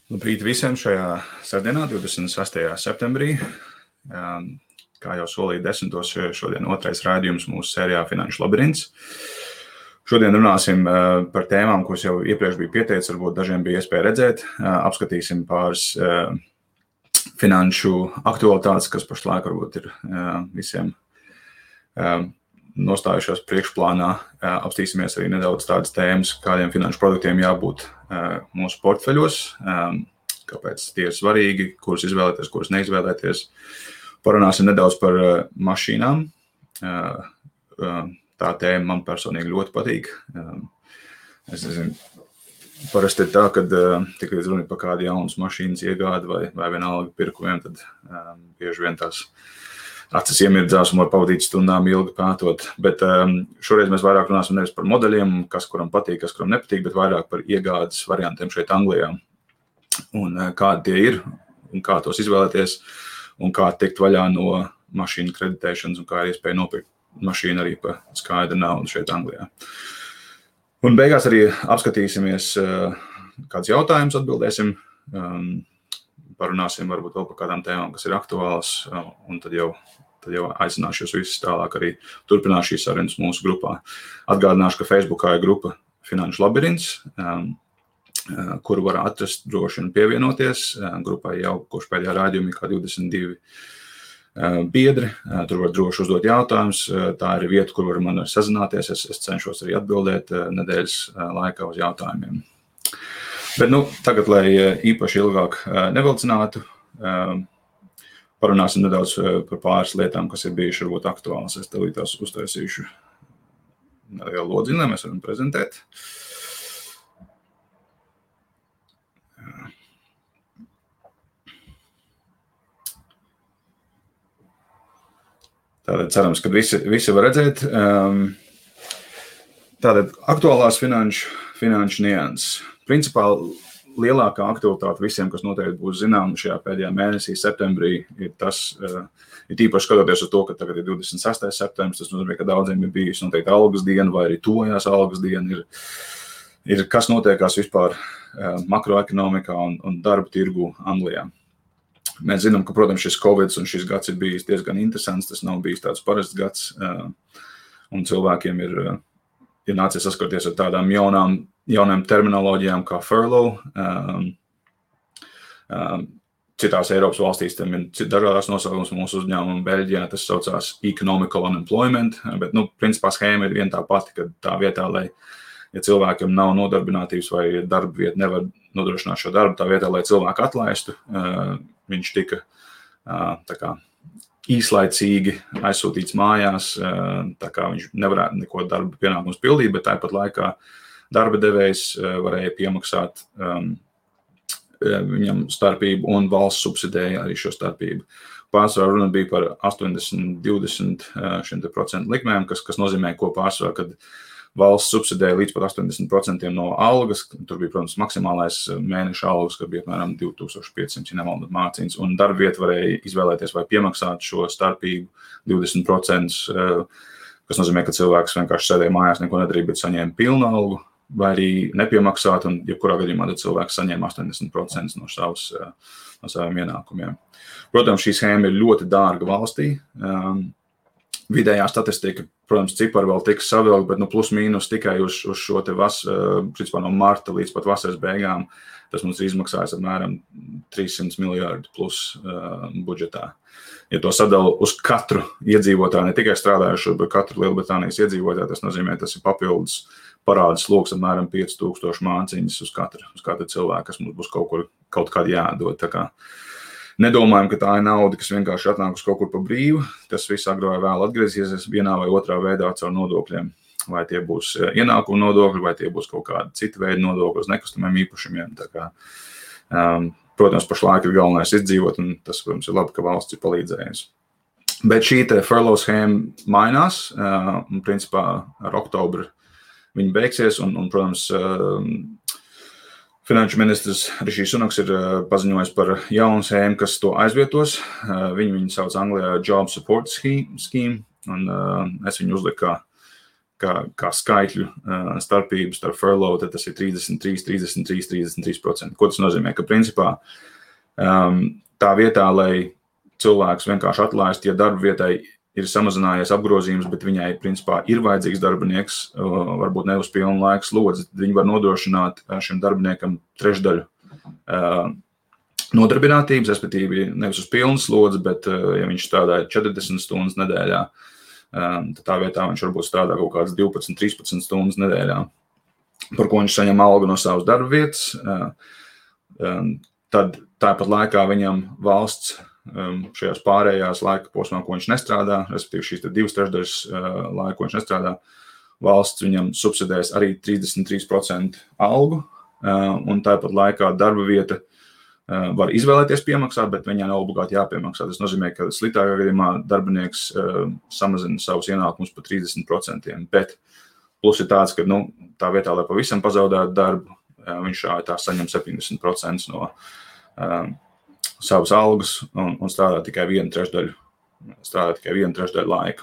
Labrīt visiem šajā sestdienā, 26. septembrī. Kā jau solīju 10. šodien otrais raidījums mūsu sērijā Finanšu labirints. Šodien runāsim par tēmām, kuras jau iepriekš bija pieteicis, varbūt dažiem bija iespēja redzēt. Apskatīsim pāris finanšu aktualitātes, kas pašlaik varbūt ir visiem nostājušās priekšplānā. Apstīsimies arī nedaudz tādas tēmas, kādiem finanšu produktiem jābūt mūsu portfeļos, kāpēc tie ir svarīgi, kurus izvēlēties, kurus neizvēlēties. Parunāsim nedaudz par mašīnām. Tā tēma man personīgi ļoti patīk. Es nezinu, parasti ir tā, kad tikai runa par kādu jaunas mašīnas iegādi vai vienalga pirkumiem, tad bieži vien tās acis iemirdzās un var pavadīt stundām ilgi pētot. Bet šoreiz mēs vairāk runāsim nevis par modeļiem, kas kuram patīk, kas kuram nepatīk, bet vairāk par iegādes variantiem šeit Anglijā. Un kādi tie ir, un kā tos izvēlēties, un kā tikt vaļā no mašīnu kreditēšanas, un kā ir iespēja nopirkt mašīnu arī par skaidru naudu šeit Anglijā. Un beigās arī apskatīsimies kādus jautājumus, atbildēsim, parunāsim varbūt vēl par kādām tēmām, kas ir aktuālas, un tad jau aicināšu jūs visus tālāk arī turpināt šīs sarunas mūsu grupā. Atgādināšu, ka Facebookā ir grupa Finanšu labirints, kuru var atrast droši un pievienoties. Grupai jau kopš pēdējā raidījuma ir kā 22 biedri, tur var droši uzdot jautājumus. Tā ir vieta, kur var man sazināties. Es cenšos arī atbildēt nedēļas laikā uz jautājumiem. Bet tagad, lai īpaši ilgāk nevilcinātu, parunāsim nedaudz par pāris lietām, kas ir bijuši varbūt aktuāls. Es tev tās uztaisīšu nelielu lodziņu, lai mēs varam prezentēt. Tātad cerams, ka visi var redzēt. Tātad aktuālās finanšu nianses. Principā lielākā aktualitāte visiem, kas noteikti būs zināma šajā pēdējā mēnesī, septembrī, ir tas, ir īpaši skatoties uz to, ka tagad ir 26. septembris, tas nozīmē, ka daudziem ir bijis noteikti algas diena vai arī tojās algas diena, ir kas notiekās vispār makroekonomikā un darba tirgu Anglijā. Mēs zinām, ka, protams, šis Covid un šis gads ir bijis diezgan interesants, tas nav bijis tāds parasts gads, un cilvēkiem ir nācies saskarties ar tādām jaunām terminoloģijām kā furlough. Citās Eiropas valstīs tam ir dažādās nosaukums, mūsu uzņēmuma Beļģijā tas saucās economical unemployment, bet, principā schēma ir viena tā pati, ka tā vietā, lai, ja cilvēkam nav nodarbinātības vai darba vieta nevar nodrošināt šo darbu, tā vietā, lai cilvēku atlaistu, viņš tika tā kā īslaicīgi aizsūtīts mājās, tā kā viņš nevarētu neko darba pienākumus pildīt, bet tāpat laikā darba devējs varēja piemaksāt viņam starpību un valsts subsidēja arī šo starpību. Pārsvarā runa bija par 80-20% likmēm, kas nozīmē, ko pārsvarā, kad valsts subsidēja līdz pat 80% no algas. Tur bija, protams, maksimālais mēneša algas, kad bija apmēram 2500, ja nemaldos mācīns, un darba vieta varēja izvēlēties vai piemaksāt šo starpību 20%, kas nozīmē, ka cilvēks vienkārši sēdēja mājās, neko nedarīja, bet saņēma pilnu algu, vai arī nepiemaksāt, un jebkurā gadījumā tad cilvēks saņēma 80% no saviem ienākumiem. Protams, šī schēma ir ļoti dārga valstī. Vidējā statistika, protams, cipari vēl tiks savilkt, bet plus mīnus tikai uz šo te principā no marta līdz pat vasaras beigām, tas mums ir izmaksājis apmēram 300 miljārdu plus budžetā. Ja to sadala uz katru iedzīvotāju, ne tikai strādājušo, bet katru Lielbritānijas iedzīvotāju, tas nozīmē, tas ir papildus parāda sloks apmēram 5000 māciņas uz katru cilvēku, kas mums būs kaut kādā jādod. Tā kā nedomājam, ka tā ir nauda, kas vienkārši atnāk uz kaut kur pa brīvu. Tas viss agrāk vai vēl atgriezīsies vienā vai otrā veidā caur nodokļiem. Vai tie būs ienākumu nodokļi, vai tie būs kaut kādi citi veidi nodokļi uz nekustamiem īpašumiem. Tā kā, protams, pašlaik ir galvenais izdzīvot, un tas, protams, ir labi, ka valsts ir palīdzējusi. Bet šī te furlough schēma mainās, un principā ar oktobru viņi beigsies, un protams, finanšu ministrs Rišijs Sunaks ir paziņojis par jaunu schēmu, kas to aizvietos. Viņu sauc Anglijā Job Support Scheme, un es viņu uzliku kā kā skaitļu starpības starp furlough, tad tas ir 33%. Ko tas nozīmē? Ka principā tā vietā, lai cilvēks vienkārši atlaist, ja darba vietai ir samazinājies apgrozījums, bet viņai principā ir vajadzīgs darbinieks, varbūt ne uz pilnu laiku slodzi, viņi var nodrošināt šim darbiniekam trešdaļu nodarbinātības, respektīvi nevis uz pilnu slodzi, bet ja viņš strādāja 40 stundas nedēļā, tad tā vietā viņš varbūt strādā kaut kādas 12-13 stundas nedēļā, par ko viņš saņem algu no savas darba vietas. Tad tāpat laikā viņam valsts šajās pārējās laika posmā, ko viņš nestrādā, respektīvi šīs 2/3 laika, ko viņš nestrādā, valsts viņam subsidēs arī 33% algu, un tāpat laikā darba vieta var izvēlēties piemaksāt, bet viņai nav obligāti jāpiemaksā. Tas nozīmē, ka sliktākā gadījumā darbinieks samazina savus ienākumus par 30%, bet plus ir tāds, ka tā vietā, lai pavisam pazaudētu darbu, viņš tā saņem 70% no savas algas un strādā tikai 1/3 laika.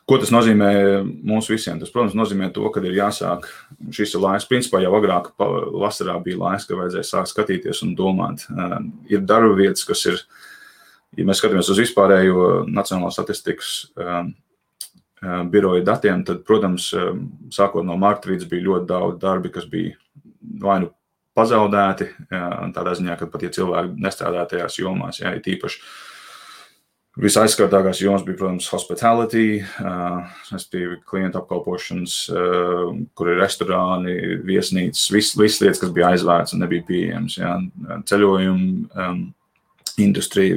Ko tas nozīmē mums visiem? Tas, protams, nozīmē to, ka ir jāsāk šis laiks. Principā jau agrāk vasarā bija laiks, ka vajadzēja sākt skatīties un domāt. Ir darba vietas, kas ir, ja mēs skatāmies uz vispārējo Nacionālās statistikas biroja datiem, tad, protams, sākot no marta vidus bija ļoti daudz darbi, kas bija vai nu pazaudēti, tādā ziņā, ka pat ja cilvēki nestrādā tajās jomās, ja, tīpaši visaizskartākās jomas bija, protams, hospitality, klientu apkalpošanas, kur ir restorāni, viesnīcas, visas lietas, kas bija aizvērts un nebija pieejams, ja, ceļojumu industrija,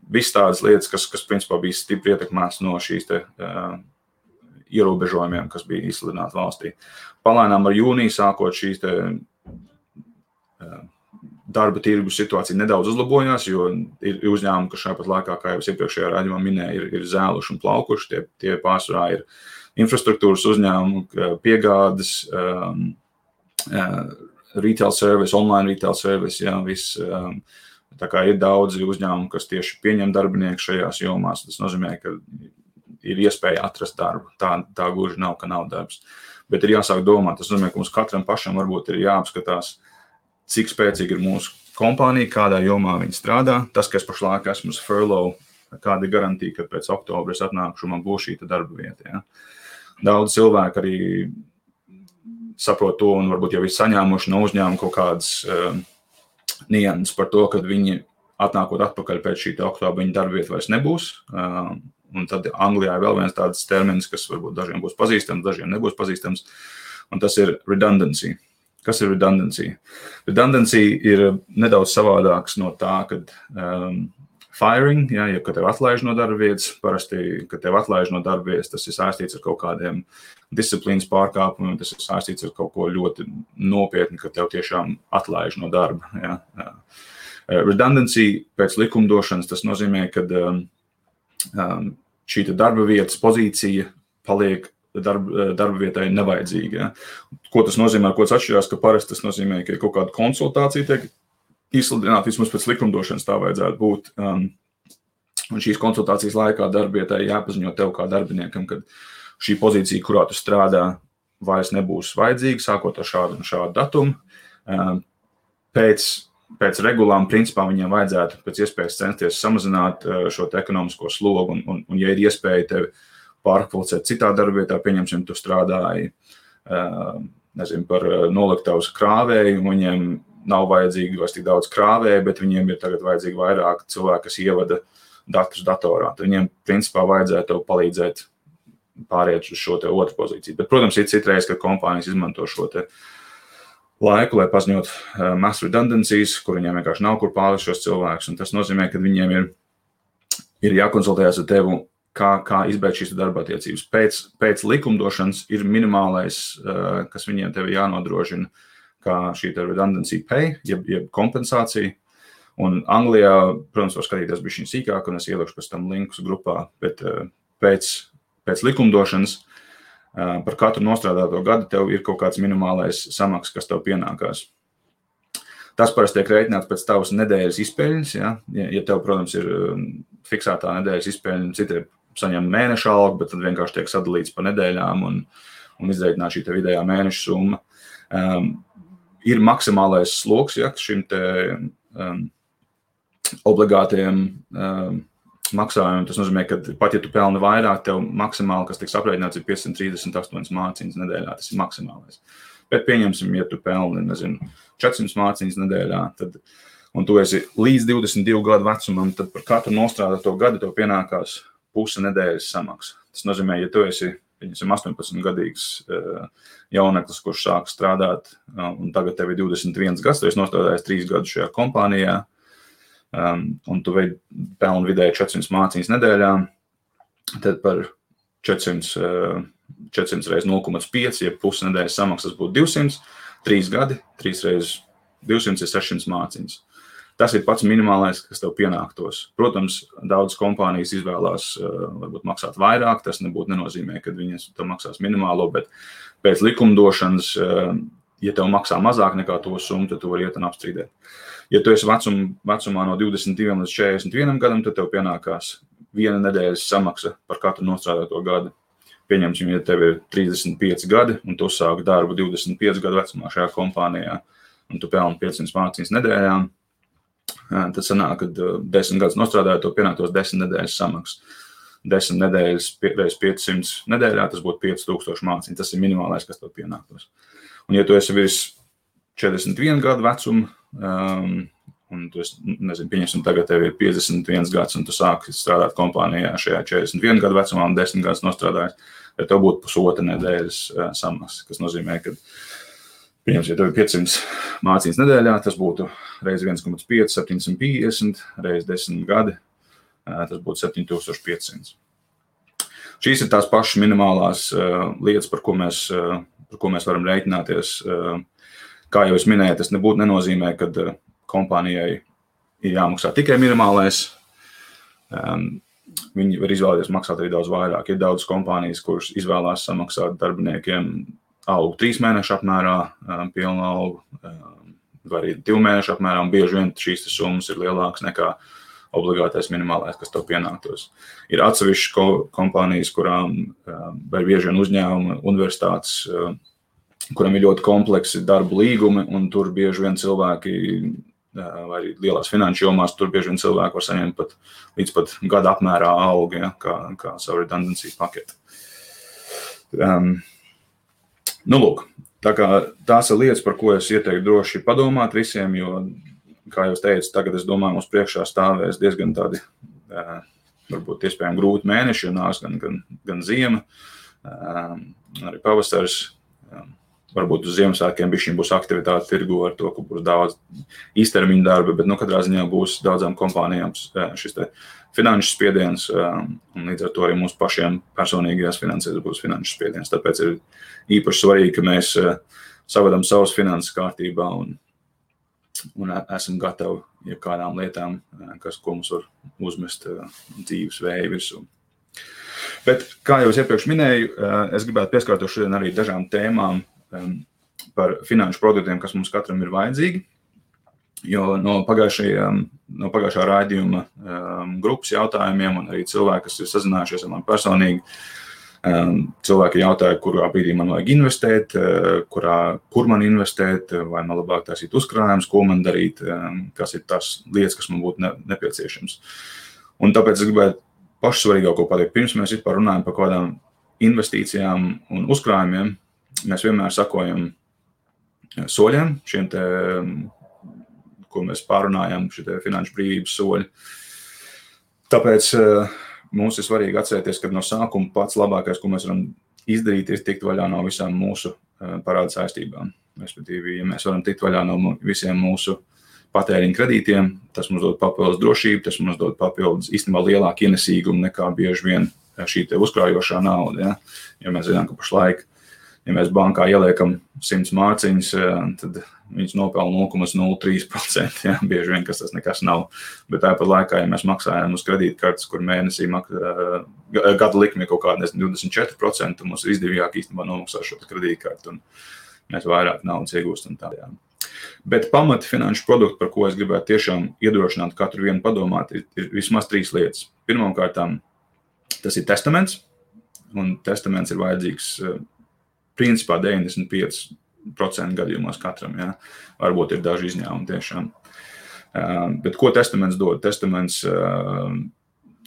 viss tādas lietas, kas principā bija stipri ietekmēts no šīs ierobežojumiem, kas bija izsludināti valstī. Palēnām ar jūniju sākot šīs darba tirgus situācija nedaudz uzlabojās, jo ir uzņēmumi, kas šāpat laikā, kā jau iepriekšējā raidījumā minēja, ir zēluši un plaukuši. Tie pārsvarā ir infrastruktūras uzņēmumi, piegādes, retail service, online retail service, jā, viss. Tā kā ir daudzi uzņēmumi, kas tieši pieņem darbinieku šajās jomās. Tas nozīmē, ka ir iespēja atrast darbu. Tā gluži nav, ka nav darbs. Bet ir jāsāk domāt. Tas nozīmē, ka mums katram pašam varbūt ir jāapskatās, cik spēcīgi ir mūsu kompānija, kādā jomā viņi strādā. Tas, ka es pašlaik esmu uz furlough, kāda ir garantija, ka pēc oktobra es atnākšu un man būs šī darba vieta. Ja? Daudz cilvēku arī saprot to un varbūt jau ir saņēmuši no uzņēmuma kaut kādas nianses par to, ka viņi atnākot atpakaļ pēc šī oktobra viņa darba vieta vairs nebūs. Un tad Anglijā ir vēl viens tāds termins, kas varbūt dažiem būs pazīstams, dažiem nebūs pazīstams, un tas ir redundancy. Kas ir redundancy? Redundancy ir nedaudz savādāks no tā, kad firing, ja kad tev atlaiž no darba vietas, parasti, kad tev atlaiž no darba vietas, tas ir saistīts ar kaut kādiem disciplīnas pārkāpumiem, tas ir saistīts ar kaut ko ļoti nopietni, ka tev tiešām atlaiž no darba. Ja. Redundancy pēc likumdošanas, tas nozīmē, ka šī darba vietas pozīcija paliek darba vietai nevajadzīga. Ja. Ko tas nozīmē, ko tas atšķirās, ka parasti tas nozīmē, ka ir kaut kāda konsultācija tiek izsludināta, vismaz pēc likumdošanas tā vajadzētu būt. Un šīs konsultācijas laikā darba vietai jāpaziņo tev kā darbiniekam, ka šī pozīcija, kurā tu strādā, vairs nebūs vajadzīga, sākot ar šādu un šādu datumu. Pēc regulām, principā, viņiem vajadzētu pēc iespējas censties samazināt šo ekonomisko slogu, un ja ir iespēja tevi pārkvalificēt citā darba vietā, pieņemsim, tu strādāji, par noliktavas krāvēju, un viņiem nav vajadzīgi vairs tik daudz krāvēju, bet viņiem ir tagad vajadzīgi vairāk cilvēki, kas ievada datus datorā. Tad viņiem, principā, vajadzētu tev palīdzēt pāriet uz šo te otru pozīciju. Bet, protams, ir citreiz, kad kompānijas izmanto šo te laiku, lai paziņot mass redundancies, kur viņiem vienkārši nav kur pārlikt šos cilvēkus, un tas nozīmē, ka viņiem ir jākonsultējas ar tevi, kā izbeigt šīs darba attiecības. Pēc likumdošanas ir minimālais, kas viņiem tevi jānodrošina, kā šī redundancy pay, jeb kompensācija. Un Anglijā, protams, var skatīties bišķiņ sīkāk, un es ielikšu pēc tam linkus grupā, bet pēc likumdošanas par katru nostrādāto gadu tev ir kaut kāds minimālais samaks, kas tev pienākās. Tas parasti tiek rēķināts pēc tavas nedēļas izpēļņas, ja tev, protams, ir fiksētā nedēļas izpēļņa, saņem mēneša algu, bet tad vienkārši tiek sadalīts pa nedēļām un izreikināta šī te vidējā mēneša summa. Ir maksimālais sloks, ja, šim te obligātiem maksājumiem. Tas nozīmē, ka pat ja tu pelni vairāk, tev maksimāli, kas tiks aprēķināts, ir 538 mārciņas nedēļā. Tas ir maksimālais. Bet pieņemsim, ja tu pelni, 400 mārciņas nedēļā, un tu esi līdz 22 gadu vecumam, tad par katru nostrādāto gadu tev pienākās puse nedēļas samaksa. Tas nozīmē, ja tu esi 18-gadīgs jauneklis, kurš sāk strādāt, un tagad tev ir 21 gads, tu esi nostrādājis 3 gadus šajā kompānijā, un tu pelni vidēji 400 mārciņas nedēļā, tad par 400 reiz 0,5, ja pusi nedēļas samaksas būtu 200, 3 gadi, 3 reiz 200 ir 600 mārciņas. Tas ir pats minimālais, kas tev pienāktos. Protams, daudz kompānijas izvēlās varbūt maksāt vairāk, tas nebūtu nenozīmē, ka viņas tev maksās minimālo, bet pēc likumdošanas, ja tev maksā mazāk nekā to summu, tad tu vari iet un apstrīdēt. Ja tu esi vecumā no 22 līdz 41 gadam, tad tev pienākās 1 nedēļas samaksa par katru nostrādāto gadu. Pieņemsim, ja tev ir 35 gadi, un tu sāki darbu 25 gadu vecumā šajā kompānijā, un tu pelni 500 mārciņas nedēļā, tad sanāk, ka 10 gadus nostrādājot, to pienāktos 10 nedēļas samaksa. 10 nedēļas reiz 500 nedēļā, tas būtu 5000 mārciņas. Tas ir minimālais, kas tev pienāktos. Un ja tu esi virs 41 gadu vecuma, un tu pieņemsim, tagad tev ir 51 gads, un tu sāki strādāt kompānijā šajā 41 gadu vecumā un 10 gadus nostrādājis, tad tev būtu pusotra nedēļas samaksa, kas nozīmē, ka, pieņemsim, ja tev ir 500 mārciņas nedēļā, tas būtu reiz 1,5, 750, reiz 10 gadi, tas būtu 7500. Šīs ir tās pašas minimālās lietas, par ko mēs varam rēķināties. Kā jau es minēju, tas nebūtu nenozīmē, ka kompānijai ir jāmaksā tikai minimālais. Viņi var izvēlēties maksāt arī daudz vairāk. Ir daudz kompānijas, kuras izvēlās samaksāt darbiniekiem algu 3 mēnešu apmērā, pilnu algu, vai arī 2 mēnešu apmērā, un bieži vien šīs summas ir lielākas nekā obligātais minimālais, kas tev pienāktos. Ir atsevišķas kompānijas, kurām vai bieži vien uzņēmumi, universitātes, kuram ir ļoti kompleksi darba līgumi, un tur bieži vien cilvēki, vai arī lielās finanšu jomās, tur bieži vien cilvēki var saņemt līdz pat gada apmērā algu, ja, kā savu redundancy paketi. Lūk, tā kā tās ir lietas, par ko es ieteiktu droši padomāt visiem, jo, kā jau teicu, tagad es domāju, mums priekšā stāvēs diezgan tādi, varbūt iespējami grūti mēneši, jo nāks gan ziema, arī pavasars. Varbūt uz Ziemassvētkiem bišķiņ būs aktivitāte tirgu ar to, ka būs daudz īstermiņa darba, bet katrā ziņā būs daudzām kompānijām šis te finanšu spiediens, un līdz ar to arī mums pašiem personīgajās finansēs būs finanšu spiediens. Tāpēc ir īpaši svarīgi, ka mēs savedam savas finanses kārtībā un esam gatavi jebkādām lietām, ko mums var uzmest dzīves vēja virsū. Bet, kā jau es iepriekš minēju, es gribētu pieskārtos šodien arī dažām tēmām par finanšu produktiem, kas mums katram ir vajadzīgi, jo no pagājušā raidījuma grupas jautājumiem un arī cilvēki, kas ir sazinājušies ar mani personīgi, cilvēki jautāja, kurā brīdī man vajag investēt, kur man investēt, vai man labāk taisīt uzkrājumus, ko man darīt, kas ir tās lietas, kas man būtu nepieciešams. Un tāpēc es gribētu pašsvarīgāko pateikt, pirms mēs vispār runājam par kādām investīcijām un uzkrājumiem, mēs vienmēr sakojam soļiem, šiem te, ko mēs pārunājam, šie te finanšu brīvības soļi. Tāpēc mums ir svarīgi atcerēties, ka no sākuma pats labākais, ko mēs varam izdarīt, ir tikt vaļā no visām mūsu parāda saistībām. Respektīvi, ja mēs varam tikt vaļā no visiem mūsu patēriņa kredītiem, tas mums dod papildus drošību, tas mums dod papildus īstenībā lielāku ienesīgumu nekā bieži vien šī te uzkrājošā nauda. Ja? Jo mēs zinām, ka pašlaik, ja mēs bankā ieliekam 100 mārciņas, tad viņas nopelna 0,03%. Ja? Bieži vien, kas tas nekas nav. Bet tāpat laikā, ja mēs maksājam uz kredītkartes, kur mēnesī gada likme kaut kāda 24%, mums ir izdevīgāk īstenībā nomaksāt šo kredītkartu un mēs vairāk naudas iegūstam tādējām. Bet pamati finanšu produktu, par ko es gribētu tiešām iedrošināt katru vienu padomāt, ir vismaz 3 lietas. Pirmkārt, Tas ir testaments, un testaments ir vajadzīgs principā 95% gadījumos katram, ja? Varbūt ir daži izņēmumi tiešām. Bet ko testaments dod? Testaments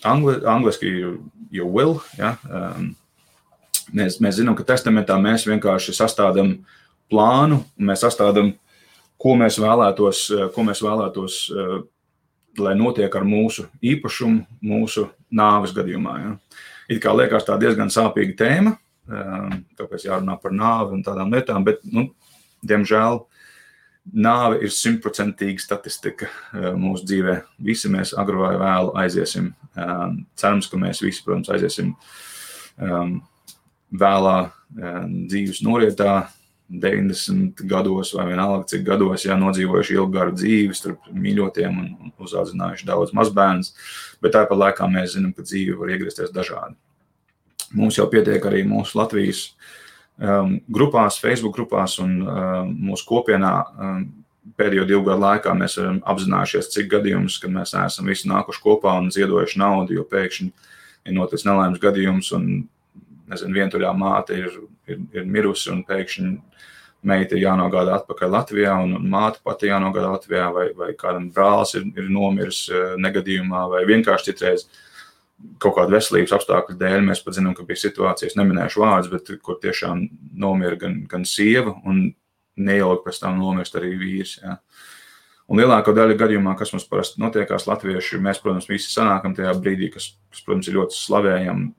angliski your will, ja? Mēs zinām, ka testamentā mēs vienkārši sastādām plānu, un mēs sastādām, ko mēs vēlētos, lai notiek ar mūsu īpašumu, mūsu nāves gadījumā. Ja? It kā liekas tā diezgan sāpīga tēma, tāpēc jārunā par nāvi un tādām lietām, bet, diemžēl, nāve ir 100% statistika mūsu dzīvē. Visi mēs agru vai vēlu aiziesim. Cerams, ka mēs visi, protams, aiziesim vēlā dzīves norietā, 90 gados vai vienalga cik gados, nodzīvojuši ilgu garu dzīvi starp mīļotiem un uzaudzinājuši daudz mazbērnus, bet tāpat laikā mēs zinām, ka dzīve var iegriezties dažādi. Mums jau pietiek arī mūsu Latvijas grupās, Facebook grupās un mūsu kopienā pēdējo 2 gadu laikā mēs esam apzinājušies, cik gadījumus, kad mēs esam visi nākuši kopā un ziedojuši naudu, jo pēkšņi ir noticis nelaimes gadījums un, vientuļā māte ir mirusi un pēkšņi meita ir jānogādā atpakaļ Latvijā un māte pati jānogādā Latvijā vai kādam brālis ir nomiris negadījumā vai vienkārši citreiz kaut kāda veselības apstākļu dēļ. Mēs pat zinām, ka bija situācijas, neminēšu vārdus, bet kur tiešām nomira gan sieva un neilgi pēc tam nomirst arī vīrs. Ja. Un lielāko daļu gadījumā, kas mums parasti notiekās latvieši, mēs, protams, visi sanākam tajā brīdī, kas protams, ir ļoti slavējam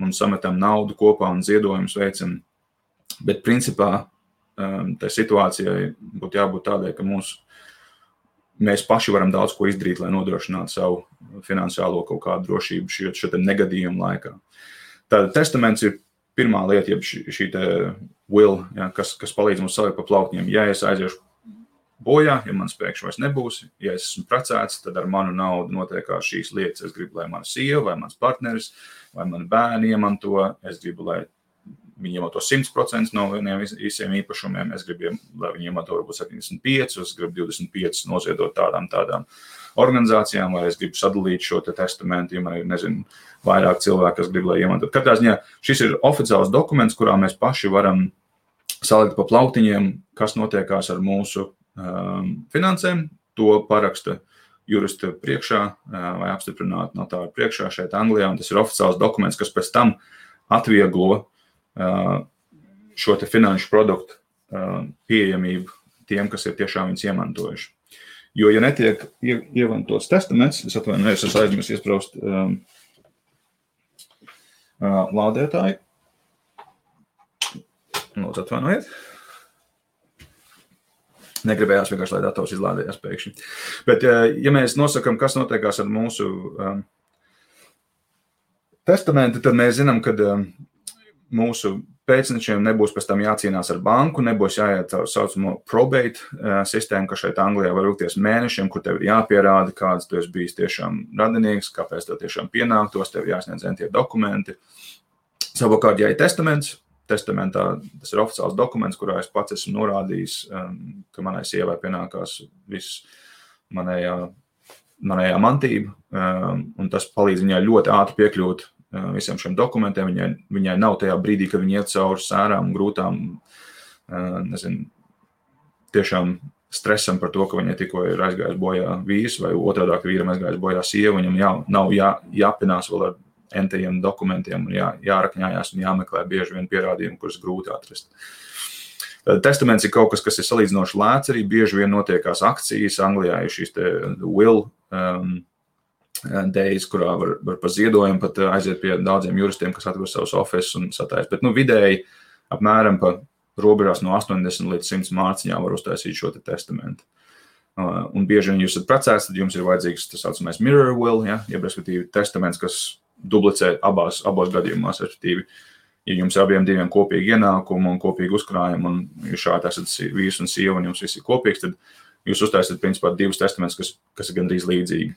un sametam naudu kopā un ziedojumus veicam. Bet principā tai situācijai būtu jābūt tādai, ka mēs paši varam daudz ko izdarīt, lai nodrošinātu savu finansiālo kaut kādu drošību šo negadījumu laikā. Tātad testaments ir pirmā lieta, jeb šī te will, kas palīdz mums salikt pa plauktiņiem. Ja es aiziešu bojā, ja man pēkšņi vairs nebūs, ja es esmu precēts, tad ar manu naudu notiekās šīs lietas. Es gribu, lai mana sieva, vai mans partneris, vai mani bērni iemanto. Es gribu, lai viņi iemanto 100% no visiem īpašumiem. Es gribu, lai viņi iemanto varbūt 75, es gribu 25 noziedot tādām organizācijām, vai es gribu sadalīt šo testamentu, ja man ir, vairāk cilvēku, kas grib, lai iemantot. Katrā ziņā šis ir oficiāls dokuments, kurā mēs paši varam salikt pa plauktiņiem, kas notiekās ar mūsu finansēm. To paraksta jurista priekšā vai apstiprināt notāru priekšā šeit Anglijā, un tas ir oficiāls dokuments, kas pēc tam atvieglo šo te finanšu produktu pieejamību tiem, kas ir tiešām viņus iemantojuši. Jo, ja netiek iemantots testaments, es atvainojos, es aizmirsu iespraust lādētāju. Lūdzu, atvainojiet. Negribējās vienkārši, lai dators izlādējās pēkšņi. Bet, ja mēs nosakam, kas notiekās ar mūsu testamentu, tad mēs zinām, ka mūsu pēcnečiem nebūs pēc tam jācīnās ar banku, nebūs jāiet tā saucamo probate sistēmu, kas šeit Anglijā var ilgties mēnešiem, kur tev ir jāpierāda, kāds tu esi bijis tiešām radinieks, kāpēc tev tiešām pienāktos, tev jāsniedz tie dokumenti. Savukārt, ja ir testaments, testamentā tas ir oficiāls dokuments, kurā es pats esmu norādījis, ka manai sievai pienākās viss manējā mantība, un tas palīdz viņai ļoti ātri piekļūt visiem šiem dokumentiem. Viņai nav tajā brīdī, kad viņa iet cauri sērām un grūtām, tiešām stresam par to, ka viņai tikko ir aizgājis bojā vīrs, vai otrādāk vīram aizgājis bojā sieva, viņam nav jāpinās vēl ar entajiem dokumentiem un jārakņājās un jāmeklē bieži vien pierādījumi, kurus grūti atrast. Testaments ir kaut kas ir salīdzinoši lēts, arī bieži vien notiekās akcijas. Anglijā ir šīs te will days, kurā var pa ziedojumu pat aiziet pie daudziem juristiem, kas atver savus offices un satājas. Bet vidēji apmēram pa robežās no 80 līdz 100 mārciņām var uztaisīt šo testamentu. Un bieži vien jūs esat precēts, tad jums ir vajadzīgs tas saucamais mirror will, jeb respektīvi testaments, kas dublicē abos gadījumos, respektīvi, ja jums abiem diviem kopīgi ienākumu un kopīgi uzkrājumu, un jūs šādi esat vīrs un sieva, un jums viss ir kopīgs, tad jūs uztaisat principā 2 testamentus, kas ir gandrīz līdzīgi.